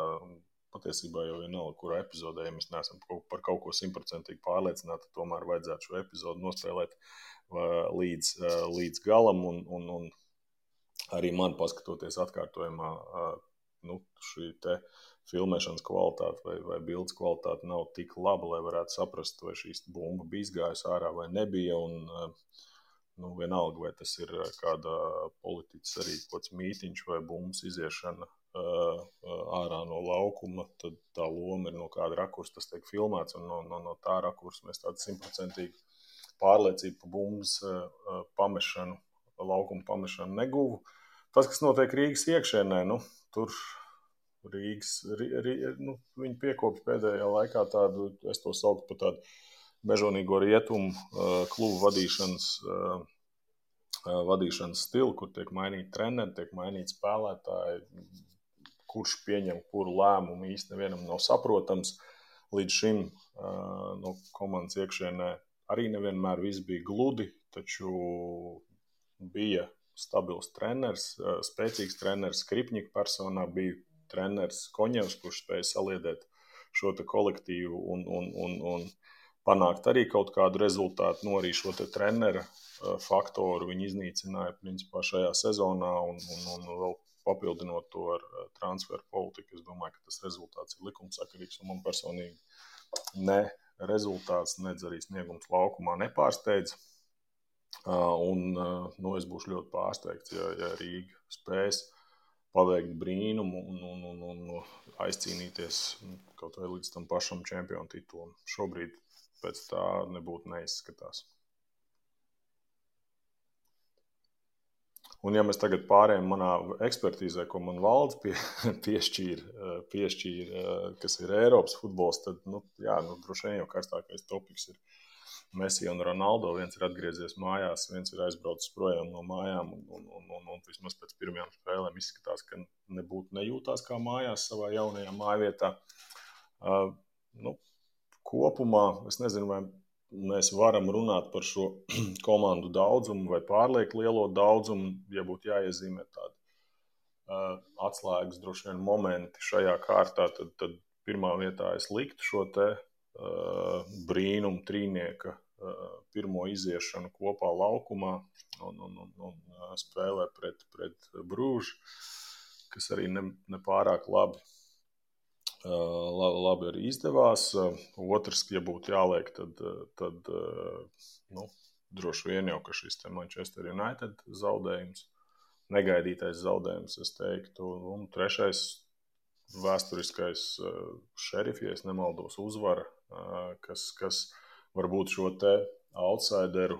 patiesībā jau vienalga, kurā epizodē, ja mēs neesam par kaut ko 100% pārliecināti, tomēr vajadzētu šo epizodu nospēlēt līdz galam, un arī man paskatoties atkārtojumā, šī te filmēšanas kvalitāte vai bildes kvalitāte nav tik laba, lai varētu saprast, vai šīs bumba bija izgājusi ārā vai nebija, un vienalga, vai tas ir kāda politiķis arī kāds mītiņš vai bumbas iziešana ārā no laukuma, tad tā loma ir no kāda rakursa, tas tiek filmēts, un no tā rakursa mēs tādu 100% pārliecību pa bumbas pamešanu, laukuma pamešanu neguvu. Tas, kas notiek Rīgas iekšēnē, tur viņi piekopja pēdējā laikā tādu, es to sauktu par tādu mežonīgo rietumu klubu vadīšanas stilu, kur tiek mainīti treneri, tiek mainīti spēlētāji, kurš pieņem kuru lēmumu īsti nevienam nav saprotams. Līdz šim no komandas iekšienē arī nevienmēr viss bija gludi, taču bija stabils treneris, spēcīgs treneris Skripņika personā, bija treneris Koņevs, kurš spēja saliedēt šo te kolektīvu un panākt arī kaut kādu rezultātu, arī šo te trenera faktoru viņi iznīcināja principā šajā sezonā un vēl papildinot to ar transferu politiku. Es domāju, ka tas rezultāts ir likumsakarīgs, un man personīgi ne rezultāts, nedz arī sniegums laukumā nepārsteidz. Es būšu ļoti pārsteigts, ja Rīga spēs paveikt brīnumu un aizcīnīties kaut vai līdz tam pašam čempionu titulam. Šobrīd pēc tā nebūtu neizskatās. Un ja mēs tagad pārējām manā ekspertīzē, ko man valdes piešķīra, kas ir Eiropas futbols, tad, droši vien jau karstākais topiks ir Messi un Ronaldo. Viens ir atgriezies mājās, viens ir aizbraucis projām no mājām, un vismaz pēc pirmajām spēlēm izskatās, ka nebūtu nejūtās kā mājās savā jaunajā mājvietā. Kopumā, es nezinu, vai mēs varam runāt par šo komandu daudzumu vai pārlieku lielo daudzumu, ja būtu jāiezīmē tādi atslēgas droši vien momenti šajā kārtā, tad pirmā vietā es liktu šo te brīnumu trīnieka pirmo iziešanu kopā laukumā un spēlē pret Bružu, kas arī nepārāk labi arī izdevās. Otrs, ja būtu jāliek, tad droši vien jau, ka šis te Manchester United zaudējums, negaidītais zaudējums, es teiktu, un trešais vēsturiskais Šerifi, ja es nemaldos, uzvara, kas varbūt šo te outsideru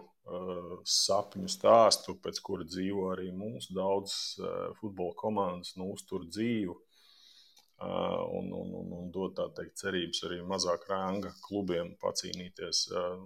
sapņu stāstu, pēc kura dzīvo arī mūsu daudz futbola komandas, uztur dzīvu un dod, tā teikt, cerības arī mazāk ranga klubiem pacīnīties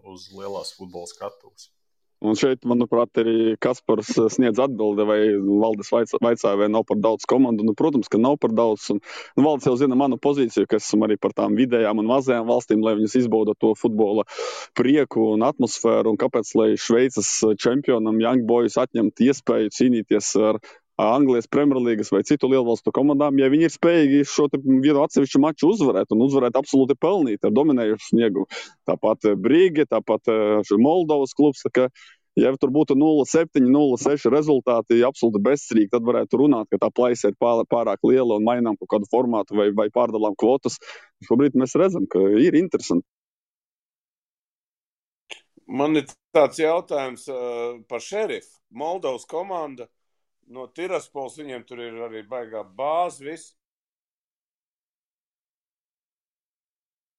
uz lielās futbola skatuves. Un šeit, manuprāt, arī Kaspars sniedz atbildi, vai Valdes vaicāja, vai nav par daudz komandu. Protams, ka nav par daudz. Un Valdes jau zina manu pozīciju, ka esmu arī par tām vidējām un mazajām valstīm, lai viņas izbauda to futbola prieku un atmosfēru. Un kāpēc, lai Šveices čempionam Young Boys atņemt iespēju cīnīties ar Anglijas Premjerlīgas vai citu lielvalstu komandām, ja viņi ir spējīgi šo vienu atsevišķu maču uzvarēt un uzvarēt absolūti pelnīt ar dominējušu sniegumu. Tāpat Brīge, tāpat Moldovas klubs, tā kā, ja tur būtu 0-7, 0-6 rezultāti absolūti bezcerīgi, tad varētu runāt, ka tā plaisa ir pārāk liela un mainām kaut kādu formātu vai pārdalām kvotas. Šobrīd mēs redzam, ka ir interesanti. Man ir tāds jautājums par Šerifu. Moldovas komanda no Tiraspols, viņiem tur ir arī baigā bāze, viss.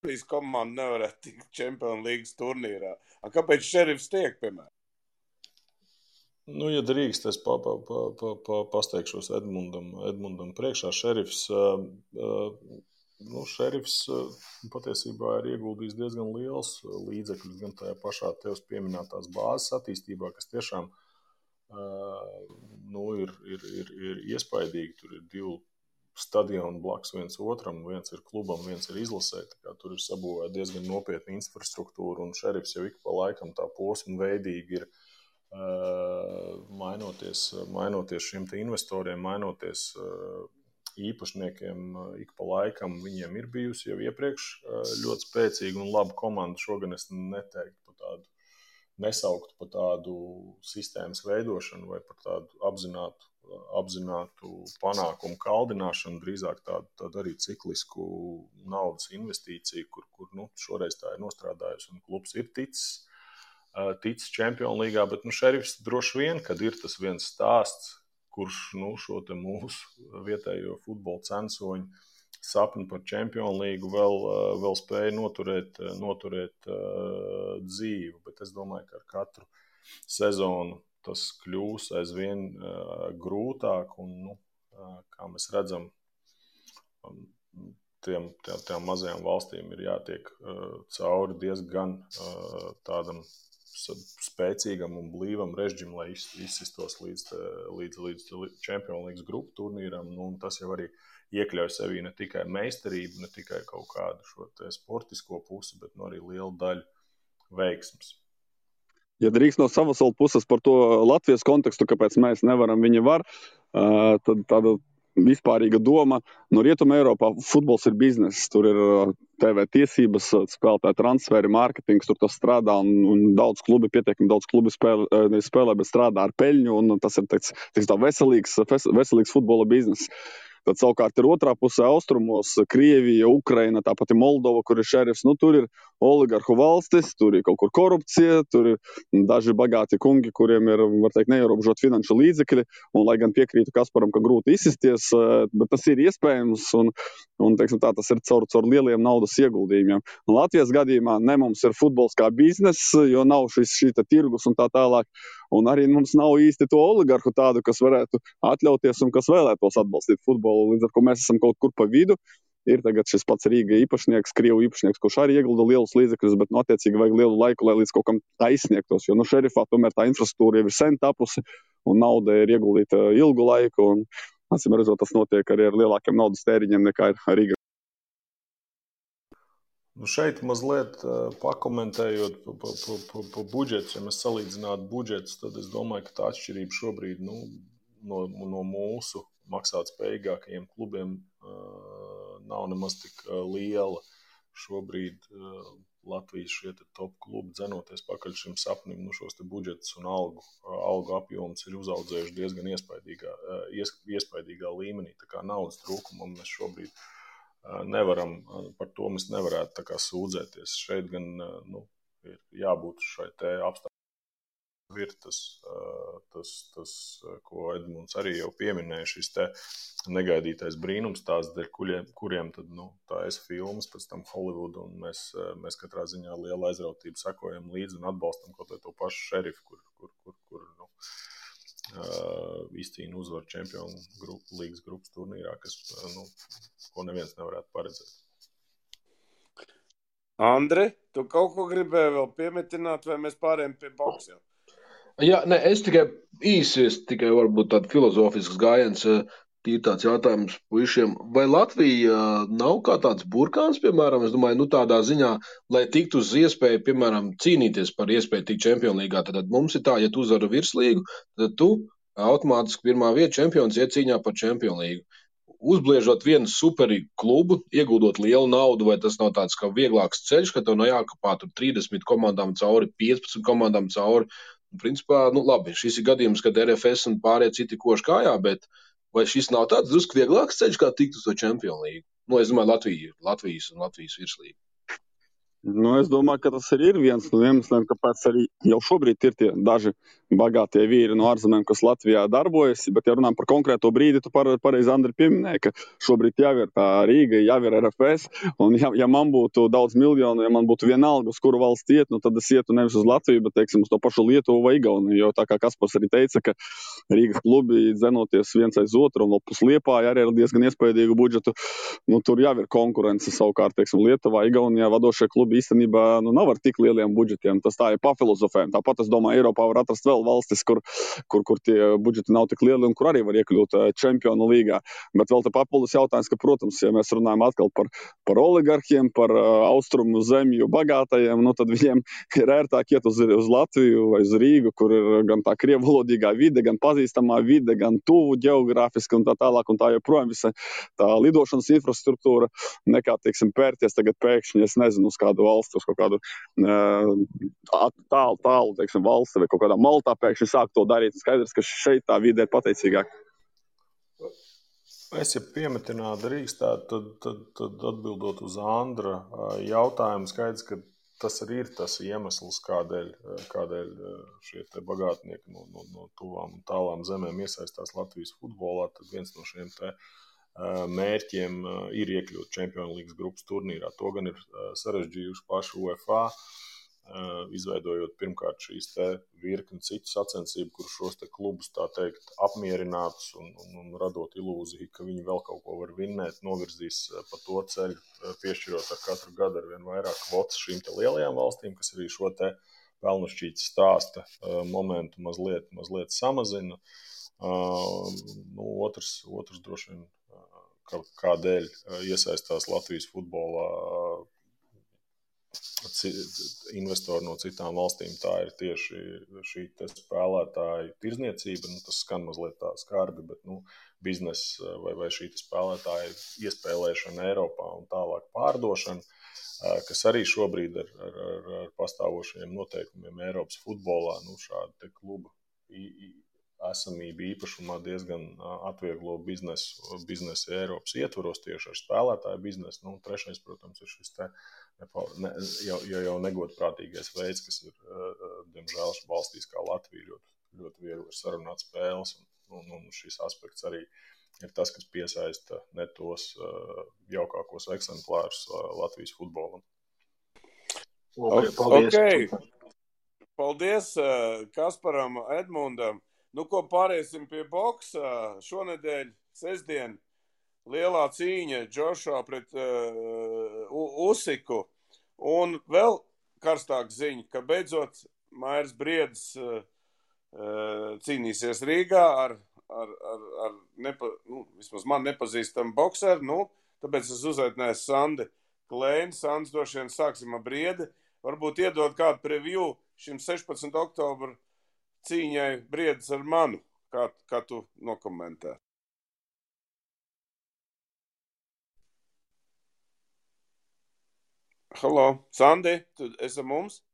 Šīs komanda nevarētu tikt Champions League turnīrā. Kāpēc Šerifs tiek, piemēram? Ja drīkst, es pasteikšos Edmundam priekšā. Šerifs patiesībā ir ieguldījis diezgan liels līdzekļus gan tajā pašā tevs pieminētās bāzes attīstībā, kas tiešām ir iespaidīgi. Tur ir 2 stadioni blakus viens otram, viens ir klubam, viens ir izlasē. Tur ir sabūvēta diezgan nopietna infrastruktūra, un Šerifs jau ik pa laikam tā posmu veidīgi ir mainoties šiem te investoriem, mainoties īpašniekiem ik pa laikam. Viņiem ir bijusi jau iepriekš ļoti spēcīga un laba komanda. Šogan es neteiktu par tādu, nesauktu par tādu sistēmas veidošanu vai par tādu apzinātu panākumu kaldināšanu, drīzāk tādu arī ciklisku naudas investīciju, kur šoreiz tā ir nostrādājusi un klubs ir ticis Čempionu līgā, bet Šerifs droši vien, kad ir tas viens stāsts, kurš šo te mūsu vietējo futbola censoņu sapni par Čempionu līgu vēl spēja noturēt dzīvu, bet es domāju, ka ar katru sezonu tas kļūs aizvien grūtāk, un, kā mēs redzam, tiem mazajām valstīm ir jātiek cauri diezgan tādam spēcīgam un blīvam režģim, lai izsistos līdz Čempionu līgas grupu turnīram, un tas jau arī iekļauj sevī ne tikai meistarību, ne tikai kaut kādu šo te sportisko pusi, bet arī lielu daļu veiksmes. Ja drīkst no savas puses par to Latvijas kontekstu, kāpēc mēs nevaram, viņi var, tad tāda vispārīga doma. No Rietuma Eiropā futbols ir bizness. Tur ir TV tiesības, spēlētāju transferi, mārketings, tur tas strādā un daudz klubi, pietiekami daudz klubi spēlē, bet strādā ar peļņu, un tas ir tā veselīgs futbola bizness. Tad savukārt ir otrā pusē austrumos - Krievija, Ukraina, tāpat ir Moldova, kur ir šerifs. Nu, tur ir oligarhu valstis, tur ir kaut kur korupcija, tur ir daži bagāti kungi, kuriem ir, var teikt, neierobežot finanšu līdzekļi. Un, lai gan piekrītu Kasparam, ka grūti izsisties, bet tas ir iespējams un teiksim tā, tas ir caur lieliem naudas ieguldījumiem. Un Latvijas gadījumā ne mums ir futbols kā biznes, jo nav šī tirgus un tā tālāk. Un arī mums nav īsti to oligarhu tādu, kas varētu atļauties un kas vēlētos atbalstīt futbolu. Līdz ar ko mēs esam kaut kur pa vidu. Ir tagad šis pats Rīga īpašnieks, Krievu īpašnieks, kurš arī iegulda lielus līdzekļus, bet attiecīgi vajag lielu laiku, lai līdz kaut kam aizsniegtos. Jo šerifā tomēr tā infrastruktūra jau ir sen tapusi un nauda ir ieguldīta ilgu laiku. Un, acīm redzot, tas notiek arī ar lielākiem naudas tēriņiem nekā ir Rīga. Šeit mazliet pakomentējot pa budžetu, ja mēs salīdzinātu budžetus, tad es domāju, ka tā atšķirība šobrīd no mūsu maksātspējīgākajiem klubiem nav nemaz tik liela. Šobrīd Latvijas šie top klubi dzenoties pakaļ šim sapnim, šos te budžetus un algu apjoms ir uzaudzējuši diezgan iespaidīgā līmenī. Tā kā naudas trūkumam mēs šobrīd nevaram, par to mēs nevarētu tā kā sūdzēties. Šeit gan ir jābūt šai te apstākļiem. Ir tas, ko Edmunds arī jau pieminēja, šis te negaidītais brīnums, tās dēļ kuriem tad, tā filmas, pēc tam Hollywood, un mēs katrā ziņā liela aizrautība sekojam līdzi un atbalstam kaut vai to pašu šerifu, kur izcīna uzvaru Čempionu līgas grupas turnīrā, ko neviens nevarētu paredzēt. Andri, tu kaut ko gribēji vēl piemetināt, vai mēs pārējām pie boksiem? Jā, ne, es tikai varbūt tādu filozofisks gājiens, tīri tāds jautājums puišiem. Vai Latvija nav kā tāds burkāns, piemēram, es domāju, tādā ziņā, lai tiktu uz iespēju, piemēram, cīnīties par iespēju tikt Čempionu līgā, tad mums ir tā, ja tu uzvari virslīgu, tad tu automātiski pirmā vieta čempions iet cīņā par Čempionu līgu. Uzbliežot vienu superīgu klubu, ieguldot lielu naudu, vai tas nav tāds kā vieglāks ceļš, ka tev nav jākapā tur 30 komandām cauri, 15 komandām cauri. Principā, labi, šis ir gadījums, kad RFS un pārējie citi koši kājā, bet vai šis nav tāds drusku vieglāks ceļš, kā tikt uz to Čempionu līgu? Es domāju, Latvijas virslīgu. Es domāju, ka tas arī ir viens no iemesliem, kāpēc arī jau šobrīd ir tie daži bagātie vīri no ārzemēm, kas Latvijā darbojas, bet ja runājam par konkrēto brīdi, tu pareizi, Andri, pieminēji, ka šobrīd jau ir tā Rīga, jau ir RFS, un ja man būtu daudz miljonu, ja man būtu vienalga, uz kuru valsts iet, tad es ietu nevis uz Latviju, bet, teiksim, uz to pašu Lietuvu vai Igauniju, jo tā kā Kaspars arī teica, ka Rīgas klubi dzenoties viens aiz otru, un plus Liepāja arī ar diezgan iespaidīgu budžetu, tur jau ir konkurence savukārt, teiksim, Lietuvā, Igaunijā vadošie klubi īstenībā nav ar tik lieliem budžetiem. Tas tā ir pafilozofējumi. Tāpat, es domāju, Eiropā var atrast vēl valstis, kur tie budžeti nav tik lieli un kur arī var iekļūt Čempionu līgā. Bet vēl te papildus jautājums, ka, protams, ja mēs runājam atkal par oligarhiem, par austrumu zemju bagātajiem, tad viņiem ir ērtāk iet uz Latviju vai uz Rīgu, kur ir gan tā krievvalodīgā vide, gan pazīstamā vide, gan tuvu ģeogrāfiski un tā tālāk un tā joprojām visa tā lidošanas infrastruktūra, nekā, teiksim, pērties tagad pēkšņi, es nezinu, uz kādu valstu, uz kaut kādu tālu, teiksim, valsti vai kaut kādā Maltā pēkšņi sāk to darīt. Skaidrs, ka šeit tā vide ir pateicīgāka. Es, ja piemetināt drīkstētu, tad atbildot uz Andra jautājumu, skaidrs, ka tas arī ir tas iemesls, kādēļ šie te bagātnieki no tuvām un tālām zemēm iesaistās Latvijas futbolā, tad viens no šiem te mērķiem ir iekļūt Čempionu līgas grupas turnīrā. To gan ir sarežģījuši paši UEFA, izveidojot pirmkārt šīs te virkni citu sacensību, kur šos te klubus, tā teikt, apmierinātus un radot ilūziju, ka viņi vēl kaut ko var vinnēt, novirzīs pa to ceļu, piešķirot ar katru gadu ar vien vairāk kvotas šīm te lielajām valstīm, kas arī šo te pelnušķītas stāsta momentu mazliet samazina. Otrs droši vien, kādēļ iesaistās Latvijas futbolā investori no citām valstīm, tā ir tieši šī spēlētāja tirzniecība. Tas skan mazliet tā skarbi, bet biznesa vai šī spēlētāja iespēlēšana Eiropā un tālāk pārdošana, kas arī šobrīd ar pastāvošajiem noteikumiem Eiropas futbolā, šāda te kluba esamība īpašumā diezgan atvieglo biznesu Eiropas ietvaros tieši ar spēlētāju biznesu. Trešais, protams, ir šis jau negodprātīgais veids, kas ir, diemžēl, valstīs kā Latvija ļoti viegli ir sarunāt spēles. Un šis aspekts arī ir tas, kas piesaista ne tos jaukākos eksemplārus Latvijas futbolam. Paldies! Paldies Kasparam, Edmundam. Ko pāriesim pie boksa. Šonedēļ, sestdien, lielā cīņa Džošua pret Usiku. Un vēl karstāk ziņa, ka beidzot Mairs Briedis cīnīsies Rīgā ar vismaz man nepazīstamu bokseru. Tāpēc es uzaicināju Sandi Klēni. Sands, droši vien sāksim ar Briedi. Varbūt iedod kādu preview šim 16. oktobra cīņai Briedis ar manu, kā tu nokomentē. Halo, Sandi, tu esi mums?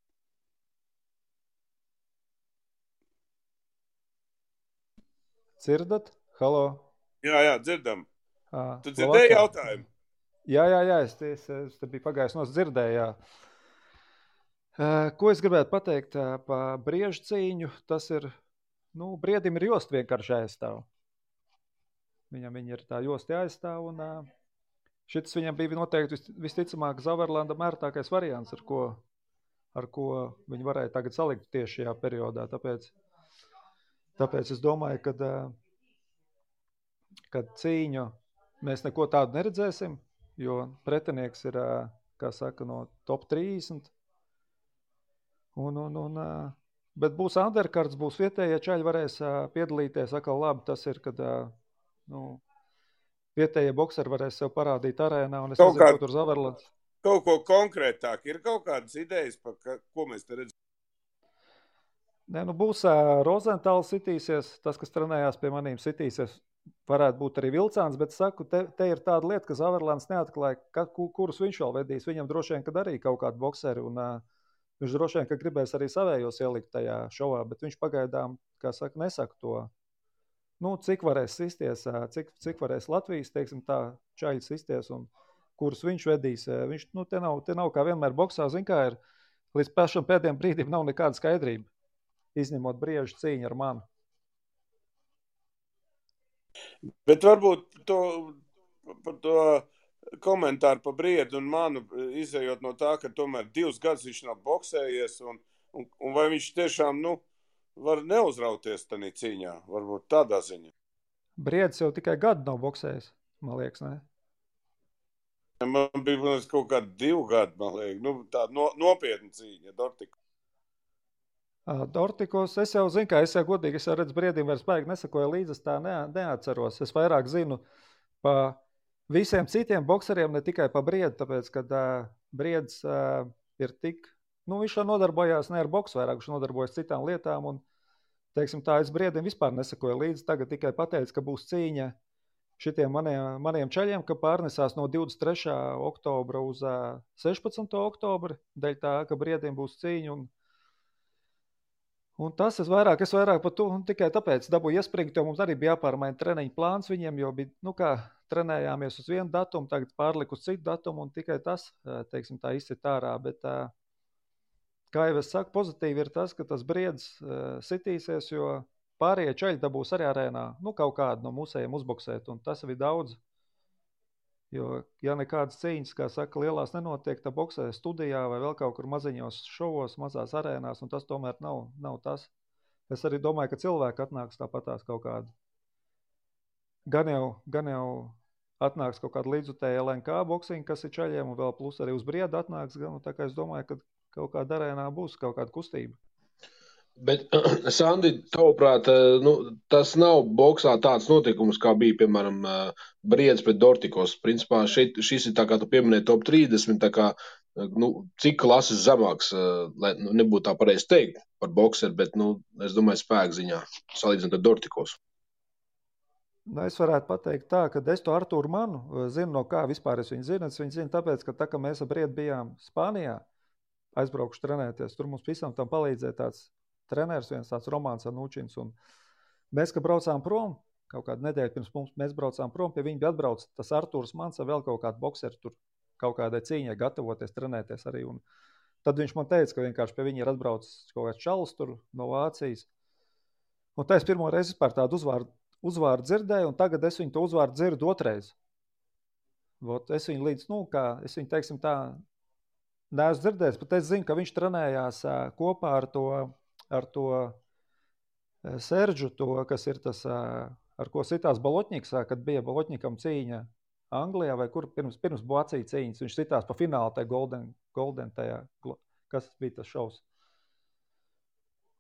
Dzirdat? Halo? Jā, dzirdam. Tu dzirdēji jautājumu? Jā, es te biju pagājis nos dzirdēju, jā. Ko es gribētu pateikt par Briežu cīņu, tas ir, Briedim ir josta vienkārši jāaizstāv. Viņam ir tā josta jāaizstāv, un šis viņam bija noteikti visticamāk Zaverlandam ērtākais variants, ar ko viņi varēja tagad salikt tieši šajā periodā. Tāpēc es domāju, kad cīņu mēs neko tādu neredzēsim, jo pretinieks ir, kā saka, no top 30. Bet būs undercards, būs vietējie čaļi, varēs piedalīties. Atkal labi tas ir, kad vietējie bokseri varēs sev parādīt arēnā, un es nezinu, ko tur Zaverlands. Kaut ko konkrētāk, ir kaut kādas idejas, par ko mēs te redzam? Būs Rozentāls sitīsies, tas, kas trenējās pie manīm sitīsies, varētu būt arī Vilcāns, bet saku, te ir tāda lieta, ka Zaverlands neatklāja, kurus viņš vēl vedīs. Viņam droši vien, kad arī kaut kādu bokseri, un viņš droši vien, ka gribēs arī savējos ielikt tajā šovā, bet viņš pagaidām, kā saka, nesaka to, cik varēs sisties, cik varēs Latvijas, teiksim tā, čaļi sisties, un kurus viņš vedīs. Viņš, te nav kā vienmēr boksā, zin kā ir, līdz pašam pēdējiem brīdim nav nekāda skaidrība, izņemot Briežu cīņu ar manu. Bet varbūt par to komentāru par Briedu un manu, izējot no tā, ka tomēr 2 gadus viņš nav boksējies, un vai viņš tiešām, var neuzrauties tanī cīņā, varbūt tādā ziņā. Briedis jau tikai gadu nav boksējis, man liekas, ne? Man bija kaut kādi 2 gadi, man liekas, tāda nopietna cīņa, Dortiko. Dortikos, es jau zinu, es jau godīgi, es jau redzu Briedim vairs baigi nesakoju līdzi, es tā neatceros. Es vairāk zinu pa visiem citiem bokseriem, ne tikai pa Briedu, tāpēc, kad Briedis ir tik, viņš jau nodarbojās ne ar boksu vairāk, viņš nodarbojas citām lietām, un, teiksim tā, es Briedim vispār nesakoju līdzi, tagad tikai pateicu, ka būs cīņa šitiem maniem čaļiem, ka pārnesās no 23. oktobra uz 16. oktobra, dēļ tā, ka Briedim būs cīņa, un tas es vairāk par to, un tikai tāpēc dabūju iespringt, jo mums arī bija jāpārmaina treniņu plāns viņiem, jo bija, trenējāmies uz vienu datumu, tagad pārliku uz citu datumu, un tikai tas, teiksim tā, izsit ārā, bet, kā jau es saku, pozitīvi ir tas, ka tas Briedis sitīsies, jo pārējie čaļi dabūs arī arēnā, kaut kādu no mūsējiem uzboksēt, un tas ir daudz. Jo, ja nekādas cīņas, kā saka, lielās nenotiek, tā boksē studijā vai vēl kaut kur maziņos šovos, mazās arēnās, un tas tomēr nav tas. Es arī domāju, ka cilvēki atnāks tāpatās kaut kādu. Gan jau atnāks kaut kāda līdzutēja LNK boksiņa, kas ir čaļiem, un vēl plus arī uz Briedu atnāks, tā kā es domāju, ka kaut kāda arēnā būs kaut kāda kustība. Bet, Sandi, tavuprāt, tas nav boksā tāds notikums, kā bija, piemēram, Briedis pret Dortikos. Principā šis ir tā kā tu pieminēji top 30, tā kā cik klases zemāks, lai nebūtu tā pareizi teikt par bokseru, bet, es domāju, spēku ziņā, salīdzinot ar Dortikos. Es varētu pateikt tā, ka es to Artūru Manu zinu, no kā vispār es viņu zinu. Es viņu zinu tāpēc, ka tā, ka mēs ar Briedu bijām Spānijā, aizbraukšu trenēties, tur mums visam tam palīdzēja tāds treneris, viens tāds Romāns Anučins, un mēs, kad braucām prom, kaut kādu nedēļu pirms mums, mēs braucām prom, pie viņa bija atbrauc tas Artūrs Mans ar vēl kaut kādu bokseru tur kaut kādai cīņai gatavoties, trenēties arī, un tad viņš man teica, ka vienkārši pie viņa ir atbraucis kaut kāds čalis tur no Vācijas, un tā es pirmo reizi vispār tādu uzvārdu dzirdēju, un tagad es viņu to uzvārdu dzirdu otrais. Es viņu līdz, es viņu, teiksim tā, neesmu dzirdējis, bet es zinu, ka viņš trenējās kopā ar to Seržu, kas ir tas, ar ko sitās Balotņiks, kad bija Balotņikam cīņa Anglijā, vai kur pirms Vācija cīņas, viņš sitās pa finālu tajā Golden tajā, kas bija tas šovs.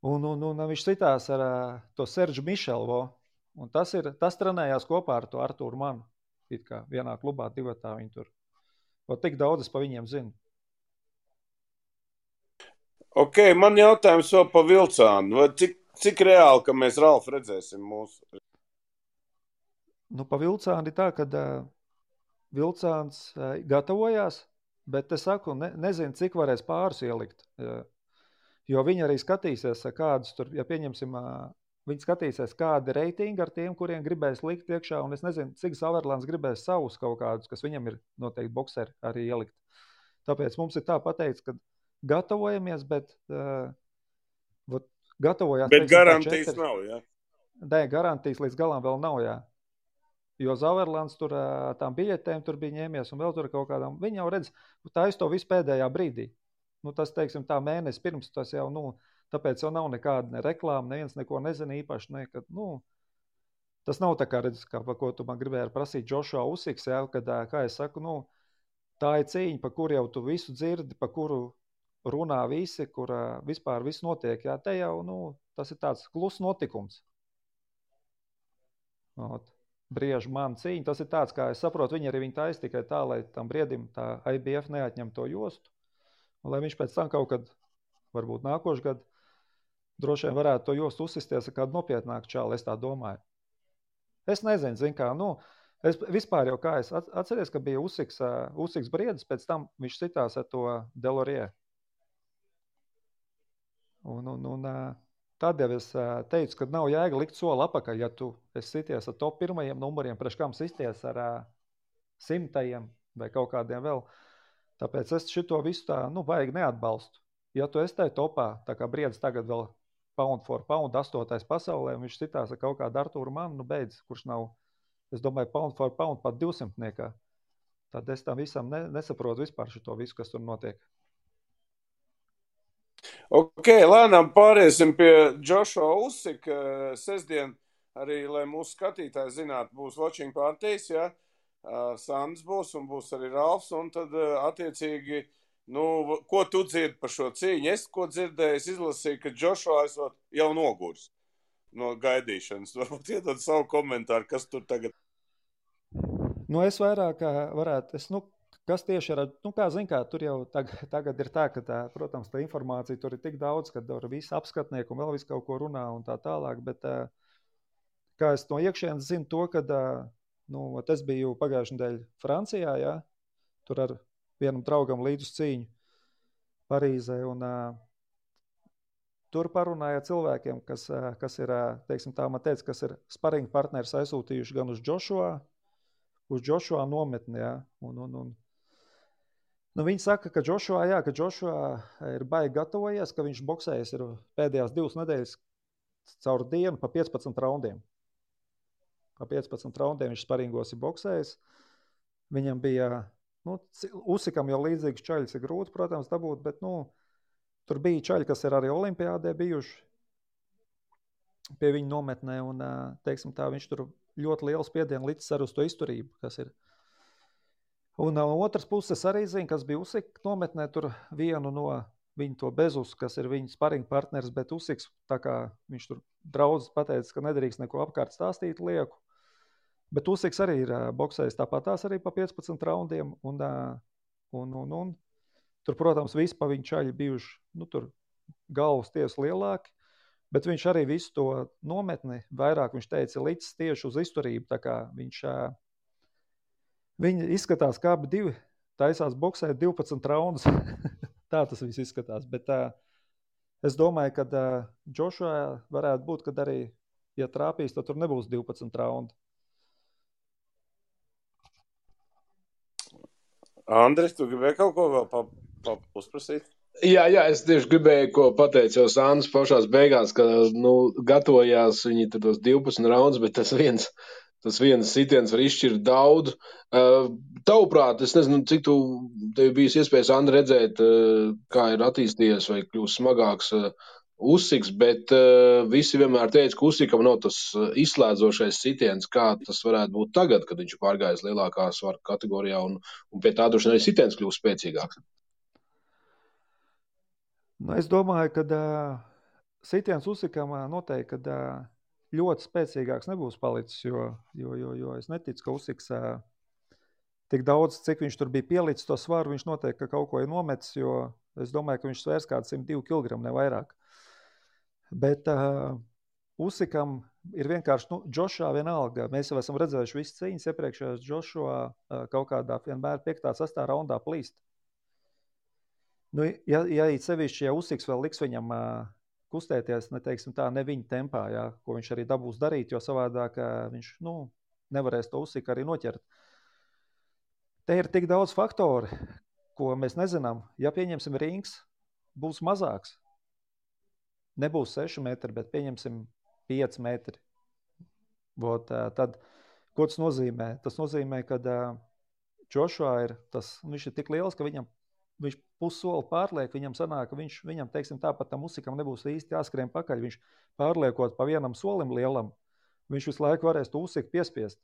Un viņš sitās ar to Seržu Mišelvo, un tas trenējās kopā ar to Artūru Manu, it kā vienā klubā, divatā viņi tur. Tik daudz es pa viņiem zinu. Ok, man jautājums vēl pa Vilcānu. Vai cik reāli, ka mēs Ralfu redzēsim mūsu? Pa Vilcānu ir tā, ka Vilcāns gatavojās, bet es saku, nezinu, cik varēs pārus ielikt. Jo viņi arī skatīsies, kādus tur, ja pieņemsim, viņi skatīsies, kādi reitingi ar tiem, kuriem gribēs likt iekšā, un es nezinu, cik Sauerlands gribēs savus kaut kādus, kas viņam ir noteikti bokseri arī ielikt. Tāpēc mums ir tā pateikts, ka gatavojamies, bet gatavojās... Bet garantijas nav, jā? Nē, garantijas līdz galam vēl nav, jā. Jo Sauerlands tur tām biļetēm tur bija ņēmies un vēl tur kaut kādām. Viņi jau redz, tā to visu pēdējā brīdī. Tas, teiksim, tā mēnesi pirms, tas jau, tāpēc jau nav nekāda ne reklāma, neviens neko nezina īpaši, nekad, tas nav tā kā redz, par ko tu man gribēji prasīt Joshua Usiks, jā, kad, kā es saku, tā ir cīņa, pa kuru jau tu visu dzirdi, pa kuru runā visi, kur vispār viss notiek, jā, te jau, tas ir tāds klus notikums. Briežu man cīņa, tas ir tāds, kā es saprotu, viņi arī taisa tikai tā, lai tam Briedim tā IBF neatņem to jostu, un lai viņš pēc tam kaut kad, varbūt nākošu gadu, droši vien varētu to jostu uzsisties ar kādu nopietnāku čālu, es tā domāju. Es nezinu, zin kā, es vispār jau kā es atceries, ka bija Usiks Briedis, pēc tam viņš sitās ar to Delorie. Un tad jau es teicu, ka nav jēga likt soli apakaļ, ja tu esi sities ar top pirmajiem numuriem, priekš kam sisties ar 100 vai kaut kādiem vēl. Tāpēc es šito visu tā, vajag neatbalstu. Ja tu esi tai topā, tā kā Briedis tagad vēl pound for pound 8. pasaulē, un viņš sitās ar kaut kādu Artūru Manu, beidz, kurš nav, es domāju, pound for pound pat 200-niekā. Tad es tam visam nesaprotu vispār šito visu, kas tur notiek. Ok, lēnām pāriesim pie Joshua Usika. Sestdien arī, lai mūsu skatītāji zinātu, būs watching partijas, ja? Sandrs būs un būs arī Ralfs, un tad attiecīgi, ko tu dzirdi par šo cīņu? Es, ko dzirdēju, es izlasīju, ka Joshua esot jau nogurs no gaidīšanas. Varbūt iedod savu komentāru, kas tur tagad? Es vairāk varētu, kas tieši ir, kā zin kā, tur jau tagad ir tā, ka protams, tā informācija tur ir tik daudz, ka tur visi apskatnieki un vēl visu kaut ko runā un tā tālāk, bet kā es no iekšienes zinu to, ka, es biju pagājušajā nedēļā Francijā, jā, tur ar vienam draugam līdz uz cīņu Parīzē, un tur parunāja cilvēkiem, kas ir, teiksim tā, man teica, kas ir sparinga partneris aizsūtījuši gan uz Joshua nometni, jā, un viņi saka, ka Joshua ir baigi gatavojies, ka viņš boksējies ir pēdējās 2 nedēļas caur dienu pa 15 raundiem. Pa 15 raundiem viņš sparingos ir boksējis. Viņam bija, Usikam jau līdzīgs čaļs ir grūti, protams, dabūt, bet, tur bija čaļi, kas ir arī olimpiādē bijuši pie viņa nometnē, un, teiksim tā, viņš tur ļoti lielu spiedienu licis ar uz to izturību, kas ir. Un otras puses arī zina, kas bija Usika nometnē, tur vienu no viņu to Bezus, kas ir viņa sparinga partneris, bet Usiks, tā kā viņš tur draudz pateica, ka nedrīkst neko apkārt stāstīt lieku. Bet Usiks arī ir boksējis tāpatās arī pa 15 raundiem, un Tur, protams, visi pa viņu čaļi bijuši, tur galvas tiesa lielāki, bet viņš arī visu to nometni vairāk, viņš teica, licis tieši uz izturību, tā kā viņi izskatās kā abi divi, taisās boksēt 12 raundus, tā tas viss izskatās, bet es domāju, ka Joshua varētu būt, kad arī, ja trāpīs, tad tur nebūs 12 raundu. Andris, tu gribēji kaut ko vēl uzprasīt? Jā, es tieši gribēju, ko pateicu jau Sandrs pašās beigās, ka, gatavojās viņi tos 12 raundus, bet tas viens sitiens var izšķirt daudz. Tavuprāt, es nezinu, cik tev bijis iespējas, Andri, redzēt, kā ir attīstījies vai kļūst smagāks Usiks, bet visi vienmēr teica, ka Usikam nav tas izslēdzošais sitiens, kā tas varētu būt tagad, kad viņš pārgājis lielākā svara kategorijā un pie tā droši arī sitiens kļūst spēcīgāks. Es domāju, ka sitiens Usikam noteikti, ka ļoti spēcīgāks nebūs palicis, jo es neticu, ka Usiks tik daudz, cik viņš tur bija pielicis to svaru, viņš noteikti, ka kaut ko ir nometis, jo es domāju, ka viņš svērs kāds 102 kg, ne vairāk. Bet Usikam ir vienkārši, Joshua vienalga, mēs jau esam redzējuši visas cīņas iepriekšējās, Joshua kaut kādā vienmēr 5. 6. raundā plīst. Ja sevišķi, ja Usiks vēl liks viņam kustēties, ne viņa tempā, ko viņš arī dabūs darīt, jo savādāk viņš, nevarēs to Usiku arī noķert. Te ir tik daudz faktori, ko mēs nezinām. Ja pieņemsim rings, būs mazāks. Nebūs 6 metri, bet pieņemsim 5 metri. Tad, ko tas nozīmē? Tas nozīmē, ka Joshua viņš ir tik liels, ka viņš pussoli pārliek, viņam sanāk, ka viņam, teiksim, tāpat tam Usikam nebūs īsti jāskrien pakaļ. Viņš pārliekot pa vienam solim lielam, viņš visu laiku varēs to Usiku piespiest.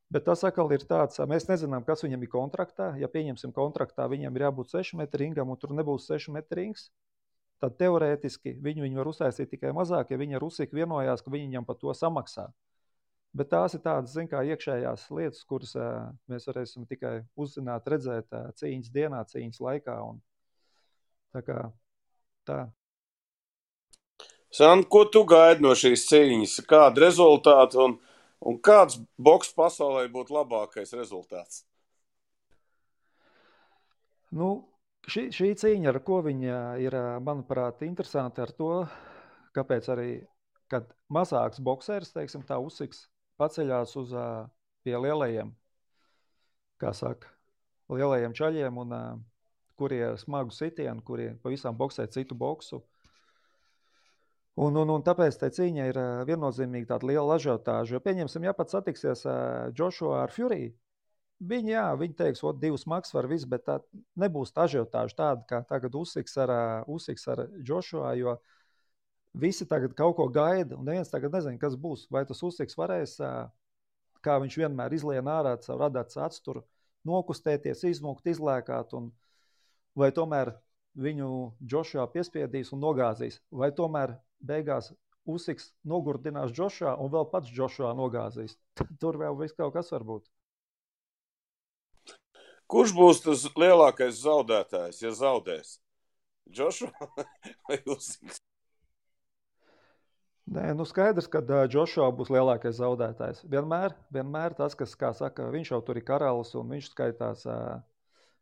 Bet tas atkal ir tāds, mēs nezinām, kas viņam ir kontraktā. Ja pieņemsim kontraktā, viņam ir jābūt 6 metri ringam un tur nebūs 6 metri rings, tad teorētiski viņi var uztaisīt tikai mazāk, ja viņi ar Usiku vienojās, ka viņi viņam par to samaksā. Bet tās ir tādas, iekšējās lietas, kuras mēs varēsim tikai uzzināt, redzēt cīņas dienā, cīņas laikā. Un tā. Sand, ko tu gaidi no šīs cīņas? Kādu rezultātu un kāds boks pasaulē būtu labākais rezultāts? Šī cīņa, ar ko viņa ir, manuprāt, interesanti ar to, kāpēc arī, kad mazāks boksērs, teiksim tā, Usiks, paceļās pie lielajiem, kā saka, lielajiem čaļiem, un kuri ir smagu sitienu, kuri pavisam boksē citu boksu. Un tāpēc tai cīņa ir viennozīmīgi tāda liela ažiotāža. Jo pieņemsim, ja pat satiksies Joshua ar Fury, viņi teiks, 2 smags var viss, bet tā nebūs tā ažiotāža tāda, kā tagad Usiks ar Joshua, jo visi tagad kaut ko gaida, un neviens tagad nezina, kas būs. Vai tas Usiks varēs, kā viņš vienmēr izlien ārā savu radāts atsturu, nokustēties, izmukt, izlēkāt, vai tomēr viņu Joshua piespiedīs un nogāzīs, vai tomēr beigās Usiks nogurdinās Joshua un vēl pats Joshua nogāzīs. Tur vēl viss kaut kas var būt. Kurš būs tas lielākais zaudētājs, ja zaudēs? Joshua vai Usiks? Nē, skaidrs, ka Joshua būs lielākais zaudētājs. Vienmēr tas, kas, kā saka, viņš jau tur ir karalis un viņš skaitās,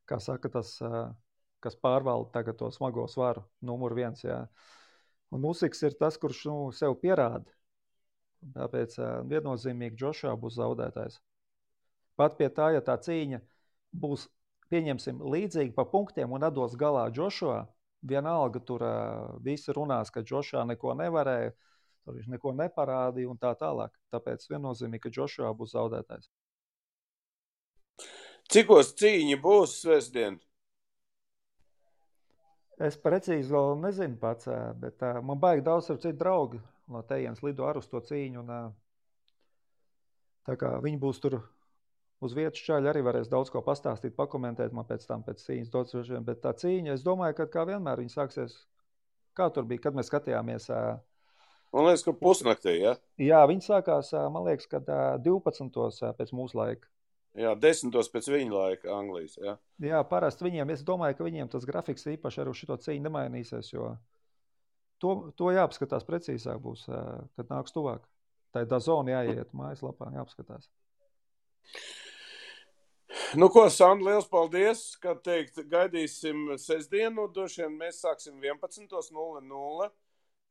kā saka, tas, kas pārvalda tagad to smago svaru, numur 1, jā. Un Usiks ir tas, kurš sev pierāda. Tāpēc viennozīmīgi Joshua būs zaudētājs. Pat pie tā, ja tā cīņa būs, pieņemsim, līdzīgi pa punktiem un atdos galā Joshua, vienalga tur visi runās, ka Joshua neko nevarēja, tur viņš neko neparādīja un tā tālāk. Tāpēc viennozīmīgi, ka Joshua būs zaudētājs. Cikos cīņa būs svētdien? Es precīzi vēl nezinu pats, bet man baigi daudz ar citu draugi no tejienes lido ar uz to cīņu. Un, tā kā viņi būs tur uz vietas, čaļi arī varēs daudz ko pastāstīt, pakomentēt man pēc cīņas dots, bet tā cīņa, es domāju, ka kā vienmēr viņa sāksies, kā tur bija, kad mēs skatījāmies. Man liekas, ka pusnaktī, ja? Jā, viņa sākās, man liekas, kad 12. pēc mūsu laika. Jā, 10 pēc viņa laika Anglijas, jā. Jā, parasti viņiem, es domāju, ka viņiem tas grafiks īpaši ar šito cīņu nemainīsies, jo to jāapskatās precīzāk būs, kad nāks tuvāk. Tā ir DAZN jāiet mājaslapā, jāapskatās. Nu ko, Sandra, liels paldies, kā teikt, gaidīsim sestdienu, droši vien mēs sāksim 11:00,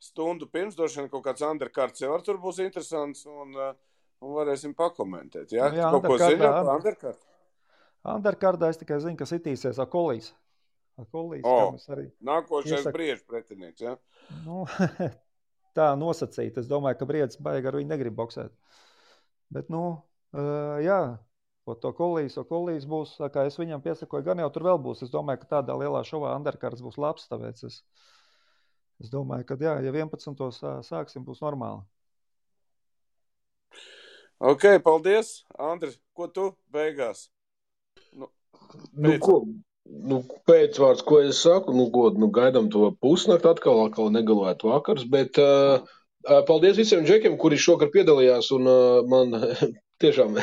stundu pirms, droši vien kaut kāds undercards jau tur būs interesants un varēsim pakomentēt, jā? Jā, kaut ko zini par undercardu? Undercardā es tikai zinu, ka sitīsies Akolīs. Nākošais Briežu pretinieks, jā? Nu, tā nosacīt, es domāju, ka Briedis baigi ar viņu negrib boksēt. Bet, jā, to Kolīs būs, kā es viņam piesakoju, gan jau tur vēl būs. Es domāju, ka tādā lielā šovā undercards būs labs, tāpēc es domāju, ka jā, ja 11. sāksim, būs normāli. Ok, paldies. Andri, ko tu beigās? Pēcvārds, ko es saku, gaidām to pusnakt atkal negalētu vakars, bet paldies visiem džekiem, kuri šokar piedalījās, un man tiešām,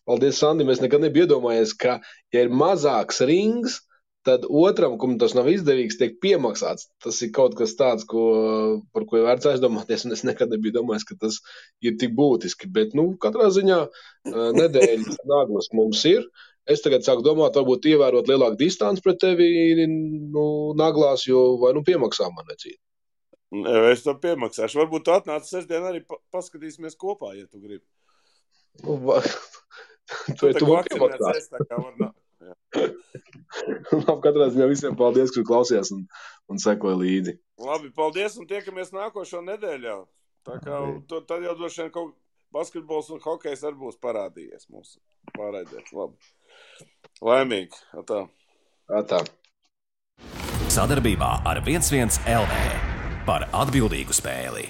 paldies Sandim, es nekad nebiju iedomājies, ka, ja ir mazāks rings, tad otram, kam tas nav izdevīgs, tiek piemaksāts. Tas ir kaut kas tāds, par ko ir vērts aizdomāties, un es nekad nebiju domājis, ka tas ir tik būtiski. Bet, katrā ziņā nedēļas naglas mums ir. Es tagad sāku domāt, varbūt ievērot lielāku distanci pret tevi naglās, jo vai piemaksā man necīt. Es to piemaksāšu. Varbūt tu atnāc sestdien arī paskatīsimies kopā, ja tu gribi. Tu vakcinēts, tā kā var nākt. Katrā ziņā visiem paldies, kur klausījās un sekoja līdzi. Labi, paldies un tiekamies nākošo nedēļu. Tā kā tad jau droši vien kaut basketbols un hokejs arī būs parādījies mūsu pārraidē. Labi. Laimīgi. Atā. Sadarbībā ar 11 LV par atbildīgu spēli.